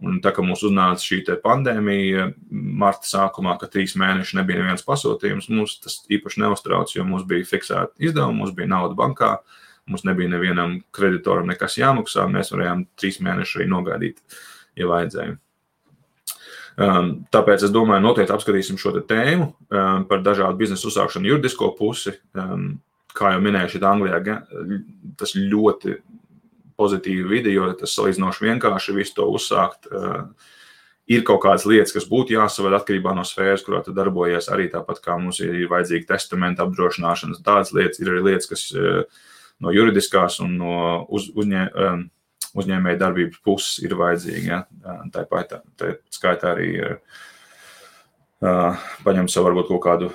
Un tā, ka mums uznāca šī pandēmija marta sākumā, ka 3 mēneši nebija neviens pasūtījums, mums tas īpaši neuztrauc, jo mums bija fiksēta izdevuma, mums bija nauda bankā, mums nebija nevienam kreditoram nekas jāmaksā, mēs varējām 3 mēnešus arī nogaidīt, ja vajadzēja. Tāpēc es domāju, noteikti apskatīsim šo tēmu par dažādu biznesu uzsākšanu juridisko pusi. Kā jau minēju, šeit Anglijā tas ļoti pozitīvi vidi, jo tas salīdzinoši vienkārši visu to uzsākt. Ir kaut kādas lietas, kas būtu jāsaved atkarībā no sfēras, kurā tu darbojies, arī tāpat kā mums ir vajadzīga testamenta apdrošināšanas. Tādas lietas ir arī lietas, kas no juridiskās un no uzņēmēja darbības puses ir vajadzīgi. Ja? Tā skaitā arī paņem sev varbūt kaut kādu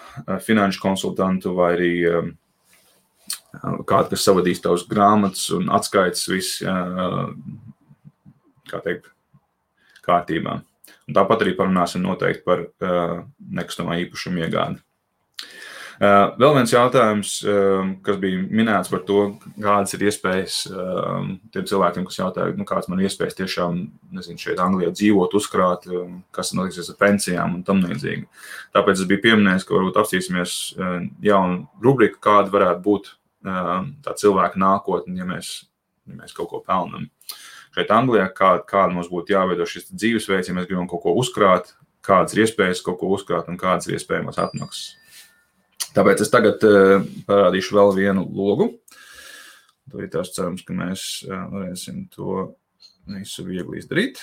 finanšu konsultantu vai arī kādu, kas savadīs tavas grāmatas un atskaitas viss, kā teikt, kārtībā. Un tāpat arī parunāsim noteikti par nekustamā īpašuma iegādi. Vēl viens jautājums, kas bija minēts par to, kādas ir iespējas tiem cilvēkiem, kas jautāja, kādas man ir iespējas tiešām, šeit Anglijā dzīvot, uzkrāt, kas notiksies ar pensijām un tam līdzīgi. Tāpēc es biju pieminējis, ka varbūt apstīsimies jaunu rubriku, kāda varētu būt tā cilvēka nākotne, ja mēs kaut ko pelnam. Šeit Anglijā, kāda mums būtu jāveido šis dzīvesveids, ja mēs gribam kaut ko uzkrāt, kādas ir iespējas kaut ko uzkrāt un kādas ir iespējamās atmaksas. Tāpēc es tagad parādīšu vēl vienu logu. Tad ir tās cerams, ka mēs varēsim to visu viegli izdarīt.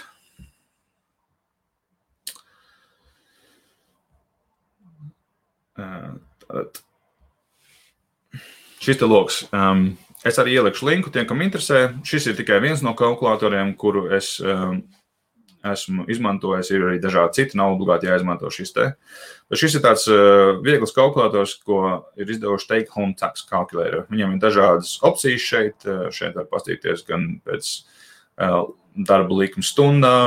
Tātad. Šis te logs. Es arī ielikšu linku tiem, kam interesē. Šis ir tikai viens no kalkulatoriem, kuru es esmu izmantojis. Ir arī dažādi citi, nav obligāti jāizmanto šis te. Bet šis ir tāds viegls kalkulators, ko ir izdevuši Take Home Tax Calculator. Viņam ir dažādas opcijas šeit. Šeit var pastīties gan pēc darba likuma stundā,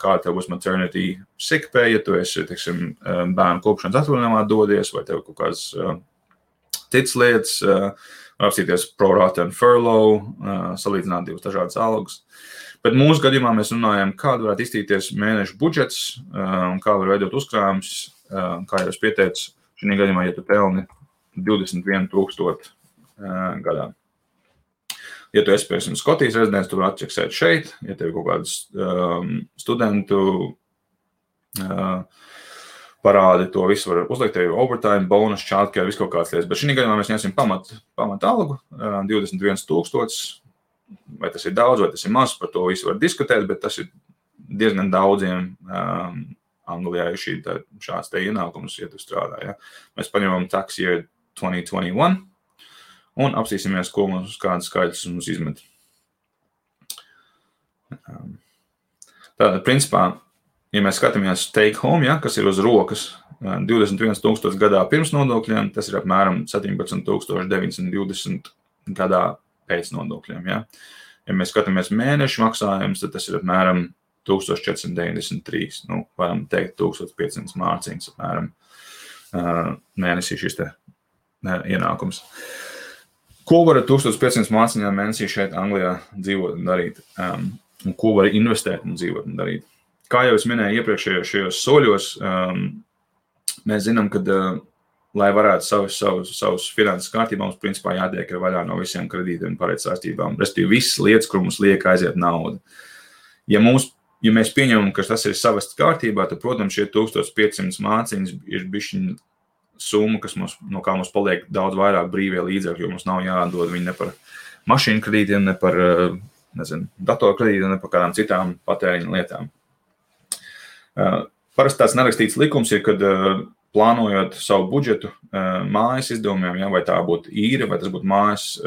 kā tev būs maternity sick pay, ja tu esi, teiksim, bērnu kopšanas atvaļinājumā dodies, vai tev kaut kādas citas lietas, apstīties pro rata un furlough, salīdzināt divas dažādas algas. Bet mūsu gadījumā mēs runājam, kāda varētu iztīties mēneša budžets un kā var veidot uzkrājumus, kā jau es pieteicu, šī gadījumā, ja tu pelni 21,000 gadā. Ja tu esi, piemēram, Skotijas rezidents, tu vari atčeksēt šeit, ja tev ir kaut kādas studentu parādi, to visu var uzlikt, tev ir overtime, bonus, childcare, visu kaut kādas lietas. Bet šī gadījumā mēs ņemsim pamat algu, 21,000, vai tas ir daudz, vai tas ir maz, par to visu var diskutēt, bet tas ir diezgan daudziem Anglijā ir šāds te ienākums, ja tu strādā. Ja? Mēs paņemam tax year 2021 un apstīsimies, ko mums kādas skaidrs mums izmet. Tātad, principā, ja mēs skatāmies take home, ja, kas ir uz rokas 21,000 gadā pirms nodokļiem, tas ir apmēram 17,920 gadā pēc nodokļiem. Ja. Ja mēs skatāmies mēnešu maksājumus, tad tas ir apmēram 1493, varam teikt 1500 mārciņas apmēram mēnesī šis te ienākums. Ko var ar 1500 mārciņām mēnesī šeit Anglijā dzīvot un darīt? Un ko var investēt un dzīvot un darīt? Kā jau es minēju iepriekšējos soļos, mēs zinām, ka, lai varētu savus finanses kārtībā, mums principā jātiek vaļā no visiem kredītiem un pareizsaistībām. Respektīvi, visas lietas, kur mums liek aiziet nauda. Ja mēs pieņemam, ka tas ir savests kārtībā, tad, protams, šie 1500 māciņas ir bišķiņ summa, no kā mums paliek daudz vairāk brīvie līdzekļi, jo mums nav jādod viņi ne par mašīnu kredītiem, ne par, datoru kredītiem, ne par kādām citām patēriņa lietām. Parasti tāds nerakstīts likums ir, kad plānojot savu budžetu mājas izdevumiem, ja, vai tā būtu īre, vai tas būtu mājas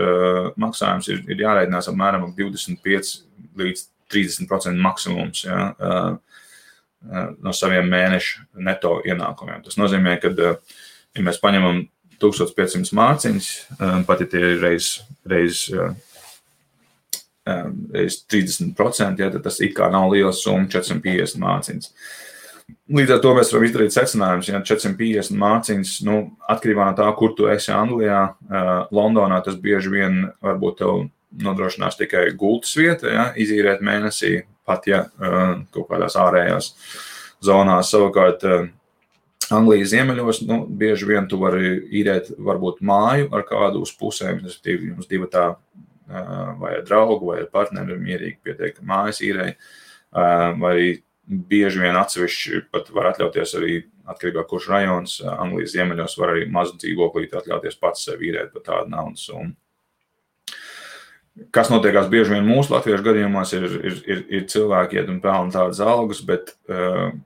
maksājums, ir jārēķinās apmēram 25 līdz 30% maksimums ja, no saviem mēnešu neto ienākumiem. Tas nozīmē, ka, ja mēs paņemam 1500 mārciņas, pat ja tie ir reiz 30%, ja, tad tas it kā nav liela summa, 450 mārciņas. Līdz ar to mēs varam izdarīt secinājumus, ja 450 mārciņas, atkarībā no tā, kur tu esi Anglijā, Londonā tas bieži vien varbūt tev nodrošinās tikai gultas vieta, ja, izīrēt mēnesī, pat ja kaut kādās ārējās zonās. Savukārt Anglijas ziemeļos, bieži vien tu vari īrēt varbūt māju ar kādu uz pusēm, respektīvi jums divatā vai ar draugu vai ar partneri mierīgi pietiek mājas īrei, vai arī bieži vien atsevišķi pat var atļauties arī atkarībā kurš rajons, Anglijas ziemeļos var arī mazu dzīvoklīti atļauties pats sev īrēt par tādu naudas summu. Kas notiekās bieži vien mūsu latviešu gadījumos, ir cilvēki iet un pelna tādas algas, bet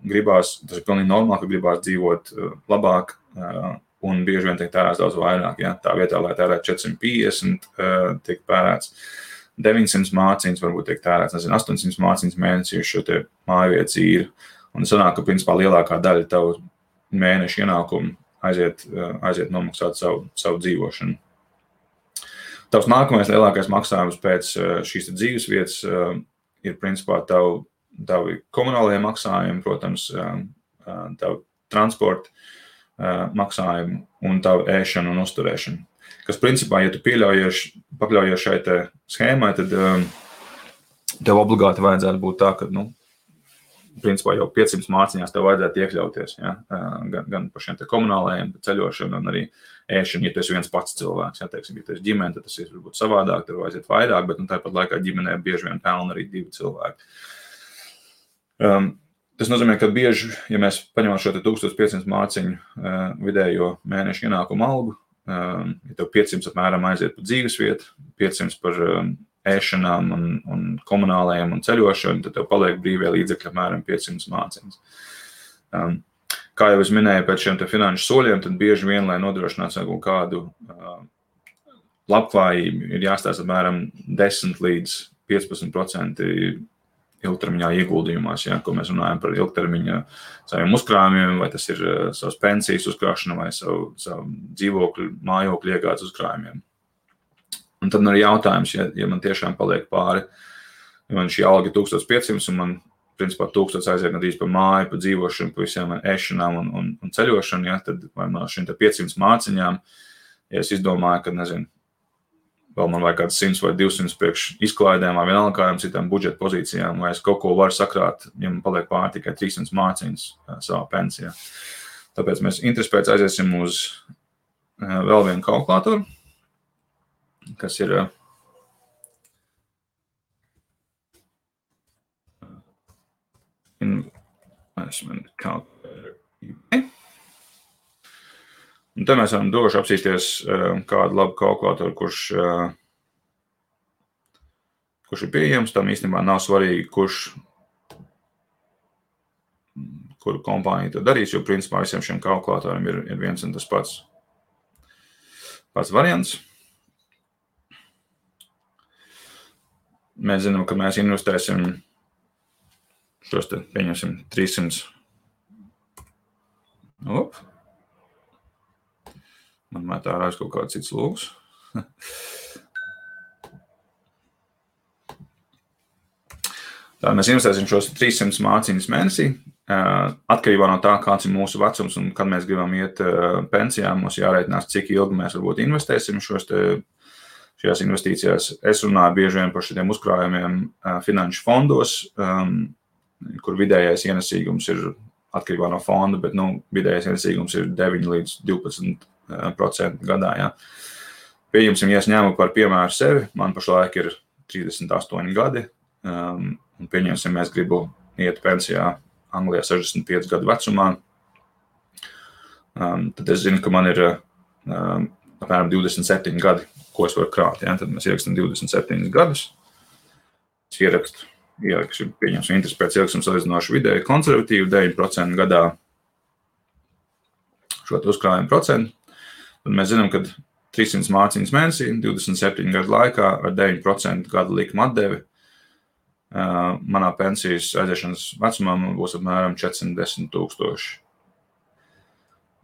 gribās, tas ir pilnīgi normāli, ka gribās dzīvot labāk un bieži vien tiek tērēts daudz vairāk. Ja? Tā vietā, lai tērētu 450, tiek tērēts 900 māciņas, varbūt tiek tērēts, 800 māciņas mēnesī uz šo te mājvietas īri. Un sanāk, ka principā lielākā daļa tavu mēneša ienākumu aiziet nomaksāt savu dzīvošanu. Tavs nākamais lielākais maksājums pēc šīs dzīves vietas ir principā tavi komunālie maksājumi, protams, tavu transporta maksājumi un tavu ēšanu un uzturēšanu. Kas principā, ja tu pakļaujies šai te schēmai, tad tev obligāti vajadzētu būt tā, ka, principā jau 500 māciņās tev vajadzētu iekļauties, ja? Gan par šiem te komunālajiem, ceļošanu un arī ēšanu, ja tu esi viens pats cilvēks. Ja, teiksim, ja tu esi ģimene, tad tas ir varbūt savādāk, tad vajadzētu vairāk, bet tāpat laikā ģimenē bieži vien pelna arī 2 cilvēki. Tas nozīmē, ka bieži, ja mēs paņemam šo 1500 māciņu vidējo mēnešu ienākumu algu, ja tev 500 apmēram aiziet par dzīvesvietu, 500 par ēšanām un komunālajiem un ceļošanu, tad tev paliek brīvie līdzekļi apmēram 500 māciņas. Kā jau es minēju, pēc šiem te finanšu soļiem, tad bieži vien, lai nodrošinātu kādu labklājību, ir jāstāsta apmēram 10 līdz 15% ilgtermiņā ieguldījumās, ja, ko mēs runājam par ilgtermiņa saviem uzkrājumiem, vai tas ir savas pensijas uzkrāšana vai savu dzīvokļu, mājokļu iegādes uzkrājumiem. Un tad arī jautājums, ja man tiešām paliek pāri, ja man šī alga 1500 un man, principā, 1000 aiziet gandrīz par māju, par dzīvošanu, par visiem ēšanām un ceļošanu, ja, tad vai no šīm 500 māciņām, ja es izdomāju, ka, vēl man vajag kāds 100 vai 200 priekš izklaidēm vai vienalga kādām citām budžeta pozīcijām, vai es kaut ko varu sakrāt, ja man paliek pāri tikai 300 māciņas savā pensijā. Tāpēc mēs interesi pēc aiziesim uz vēl vienu kalkulātoru, kas ir investment calculator. Un te mēs varam droši apsīsties kādu labu kalkulātoru, kurš ir pieejams. Tam īstenībā nav svarīgi, kuru kompāniju to darīs, jo principā visiem šiem kalkulātoriem ir viens un tas pats variants. Mēs zinām, ka mēs investēsim šos te, pieņemsim, 300. Man mētā ārā kaut kāds cits lūgs. Tā mēs investēsim šos 300 māciņas mēnesī. Atkarībā no tā, kāds ir mūsu vecums un kad mēs gribam iet pensijā, mums jāreitinās, cik ilgi mēs varbūt investēsim šajās investīcijās. Es runāju bieži vien par šiem uzkrājumiem finanšu fondos, kur vidējais ienesīgums ir atkarībā no fonda, bet vidējais ienesīgums ir 9 līdz 12% gadā. Ja. Pieņemsim, ja es ņēmu par piemēru sevi, man pašlaik ir 38 gadi, un pieņemsim, mēs gribu iet pensijā Anglijā 65 gadu vecumā, tad es zinu, ka man ir apmēram 27 gadi, ko es varu krāt. Ja? Tad mēs ierakstam 27 gadus. Es ierakstu, pieņemsim, interesi pēc ierakstu salīdzinoši vidēji konservatīvu 9% gadā šo uzkrājumu procentu. Tad mēs zinām, ka 300 māciņas mēnesī, 27 gadu laikā ar 9% gadu likuma atdevi manā pensijas aiziešanas vecumā būs apmēram 410 000.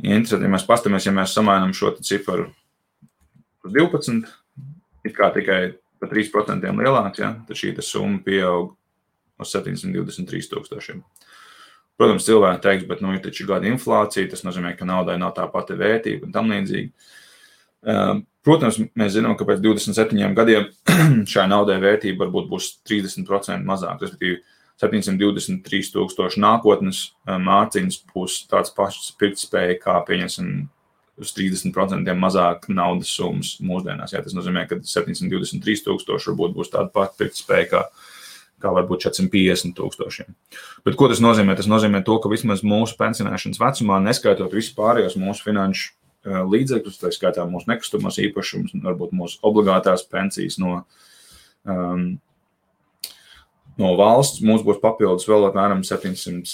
Interesanti, ja mēs pastamies, ja mēs samainam šo ciparu par 12, it kā tikai par 3% lielāks, ja, tad šī summa pieaug uz 723 000. Protams, cilvēki teiks, bet ir taču gada inflācija, tas nozīmē, ka naudai nav tā pati vērtība un tam līdzīgi. Protams, mēs zinām, ka pēc 27 gadiem šai naudai vērtība varbūt būs 30% mazāk, respektīvi 723 000 nākotnes māciņas būs tāds pašs pirktspēja, kā pieņemsim uz 30% mazāk naudas summas mūsdienās. Jā, tas nozīmē, ka 723 000 varbūt būs tāda pati pirktspēja, kā varbūt 450 000. Bet ko tas nozīmē? Tas nozīmē to, ka vismaz mūsu pensionēšanas vecumā, neskaitot visu pārējos mūsu finanšu līdzekļus, tā skaitā mūsu nekustamās īpašumus, varbūt mūsu obligātās pensijas no No valsts mums būs papildus vēl apmēram 700,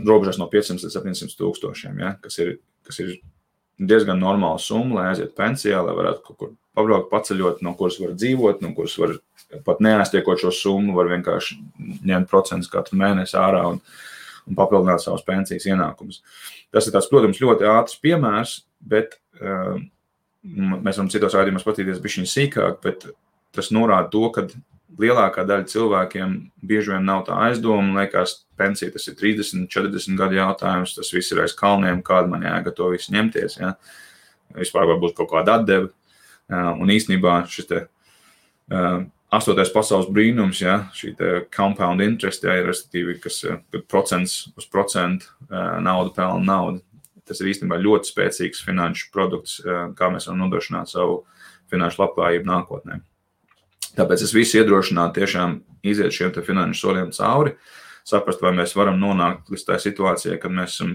robežās no 500 līdz 700 tūkstošiem, ja, kas ir diezgan normāla summa, lai aiziet pensijā, lai varētu kaut kur pabraukt, paceļot, no kuras var dzīvot, no kuras var pat neaiztiekot šo summu, var vienkārši ņemt procentus katru mēnesi ārā un papildināt savas pensijas ienākumus. Tas ir tāds, protams, ļoti ātrs piemērs, bet mēs varam citos raidījumos patīties bišķiņ sīkāk, bet tas norāda to, ka lielākā daļa cilvēkiem bieži vien nav tā aizdoma, liekas, pensija tas ir 30, 40 gadu jautājums, tas viss ir aiz kalniem, kāda man jēga to visu ņemties, ja. Vispār varbūt kaut kāda atdeva, un īstenībā šis te 8. pasaules brīnums, ja, šī te compound interest, ja, respektīvi, kas procents uz procentu naudu pelna naudu. Tas ir īstenībā ļoti spēcīgs finanšu produkts, kā mēs varam nodrošināt savu finanšu labklājību nākotnē. Tāpēc es visu iedrošinātu tiešām iziet šiem te finanšu soļiem cauri, saprast, vai mēs varam nonākt līdz tā situācijai, kad mēs esam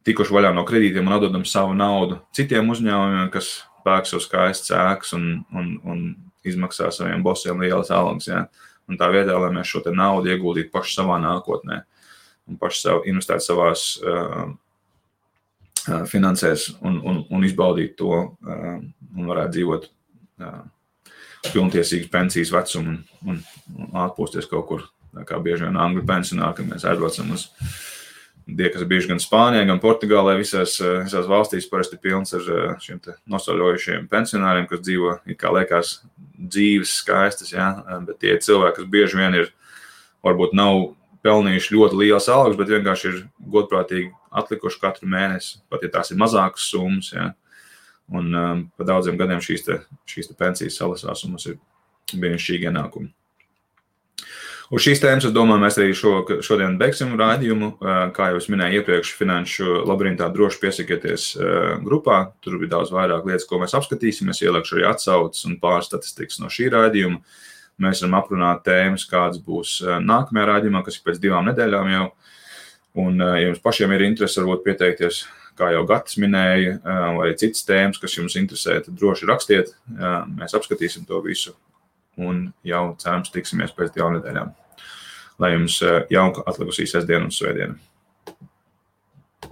tikuši vaļā no kredītiem un atdodam savu naudu citiem uzņēmumiem, kas pērk savu skaistas ēkas un izmaksā saviem bosiem lielas algas. Ja? Un tā vietā, lai mēs šo te naudu ieguldītu paši savā nākotnē un paši investētu savās finansēs un izbaudīt to un varētu dzīvot pilntiesīgas pensijas vecumu un atpūsties kaut kur, kā bieži vien angļu pensionāri, kad mēs aizbraucam uz kas ir bijuši gan Spānijā, gan Portugālē, visās valstīs parasti pilns ar šiem te nosaļojušiem pensionāriem, kas dzīvo, it kā liekas, dzīves skaistas, ja? Bet tie cilvēki, kas bieži vien varbūt nav pelnījuši ļoti lielas algas, bet vienkārši ir godprātīgi atlikuši katru mēnesi, pat ja tās ir mazākas summas, ja? Un pa daudziem gadiem šīs te pensijas salasās, un mums ir brīnišķīgi ienākumi. Uz šīs tēmas, es domāju, mēs arī šodien beigsim raidījumu. Kā jau es minēju iepriekš, Finanšu labirintā droši piesakieties grupā. Tur bija daudz vairāk lietas, ko mēs apskatīsim. Es ieliekšu arī atsauces un pāris statistikas no šī raidījuma. Mēs varam aprunāt tēmas, kādas būs nākamajā raidījumā, kas ir pēc 2 nedēļām jau. Un, ja jums pašiem ir interesi, varbūt pieteikties, kā jau Gatis minēja, vai citas tēmas, kas jums interesē, tad droši rakstiet. Mēs apskatīsim to visu un jau cerams tiksimies pēc 2 nedēļām. Lai jums jauka atlikusī sestdiena un svētdiena.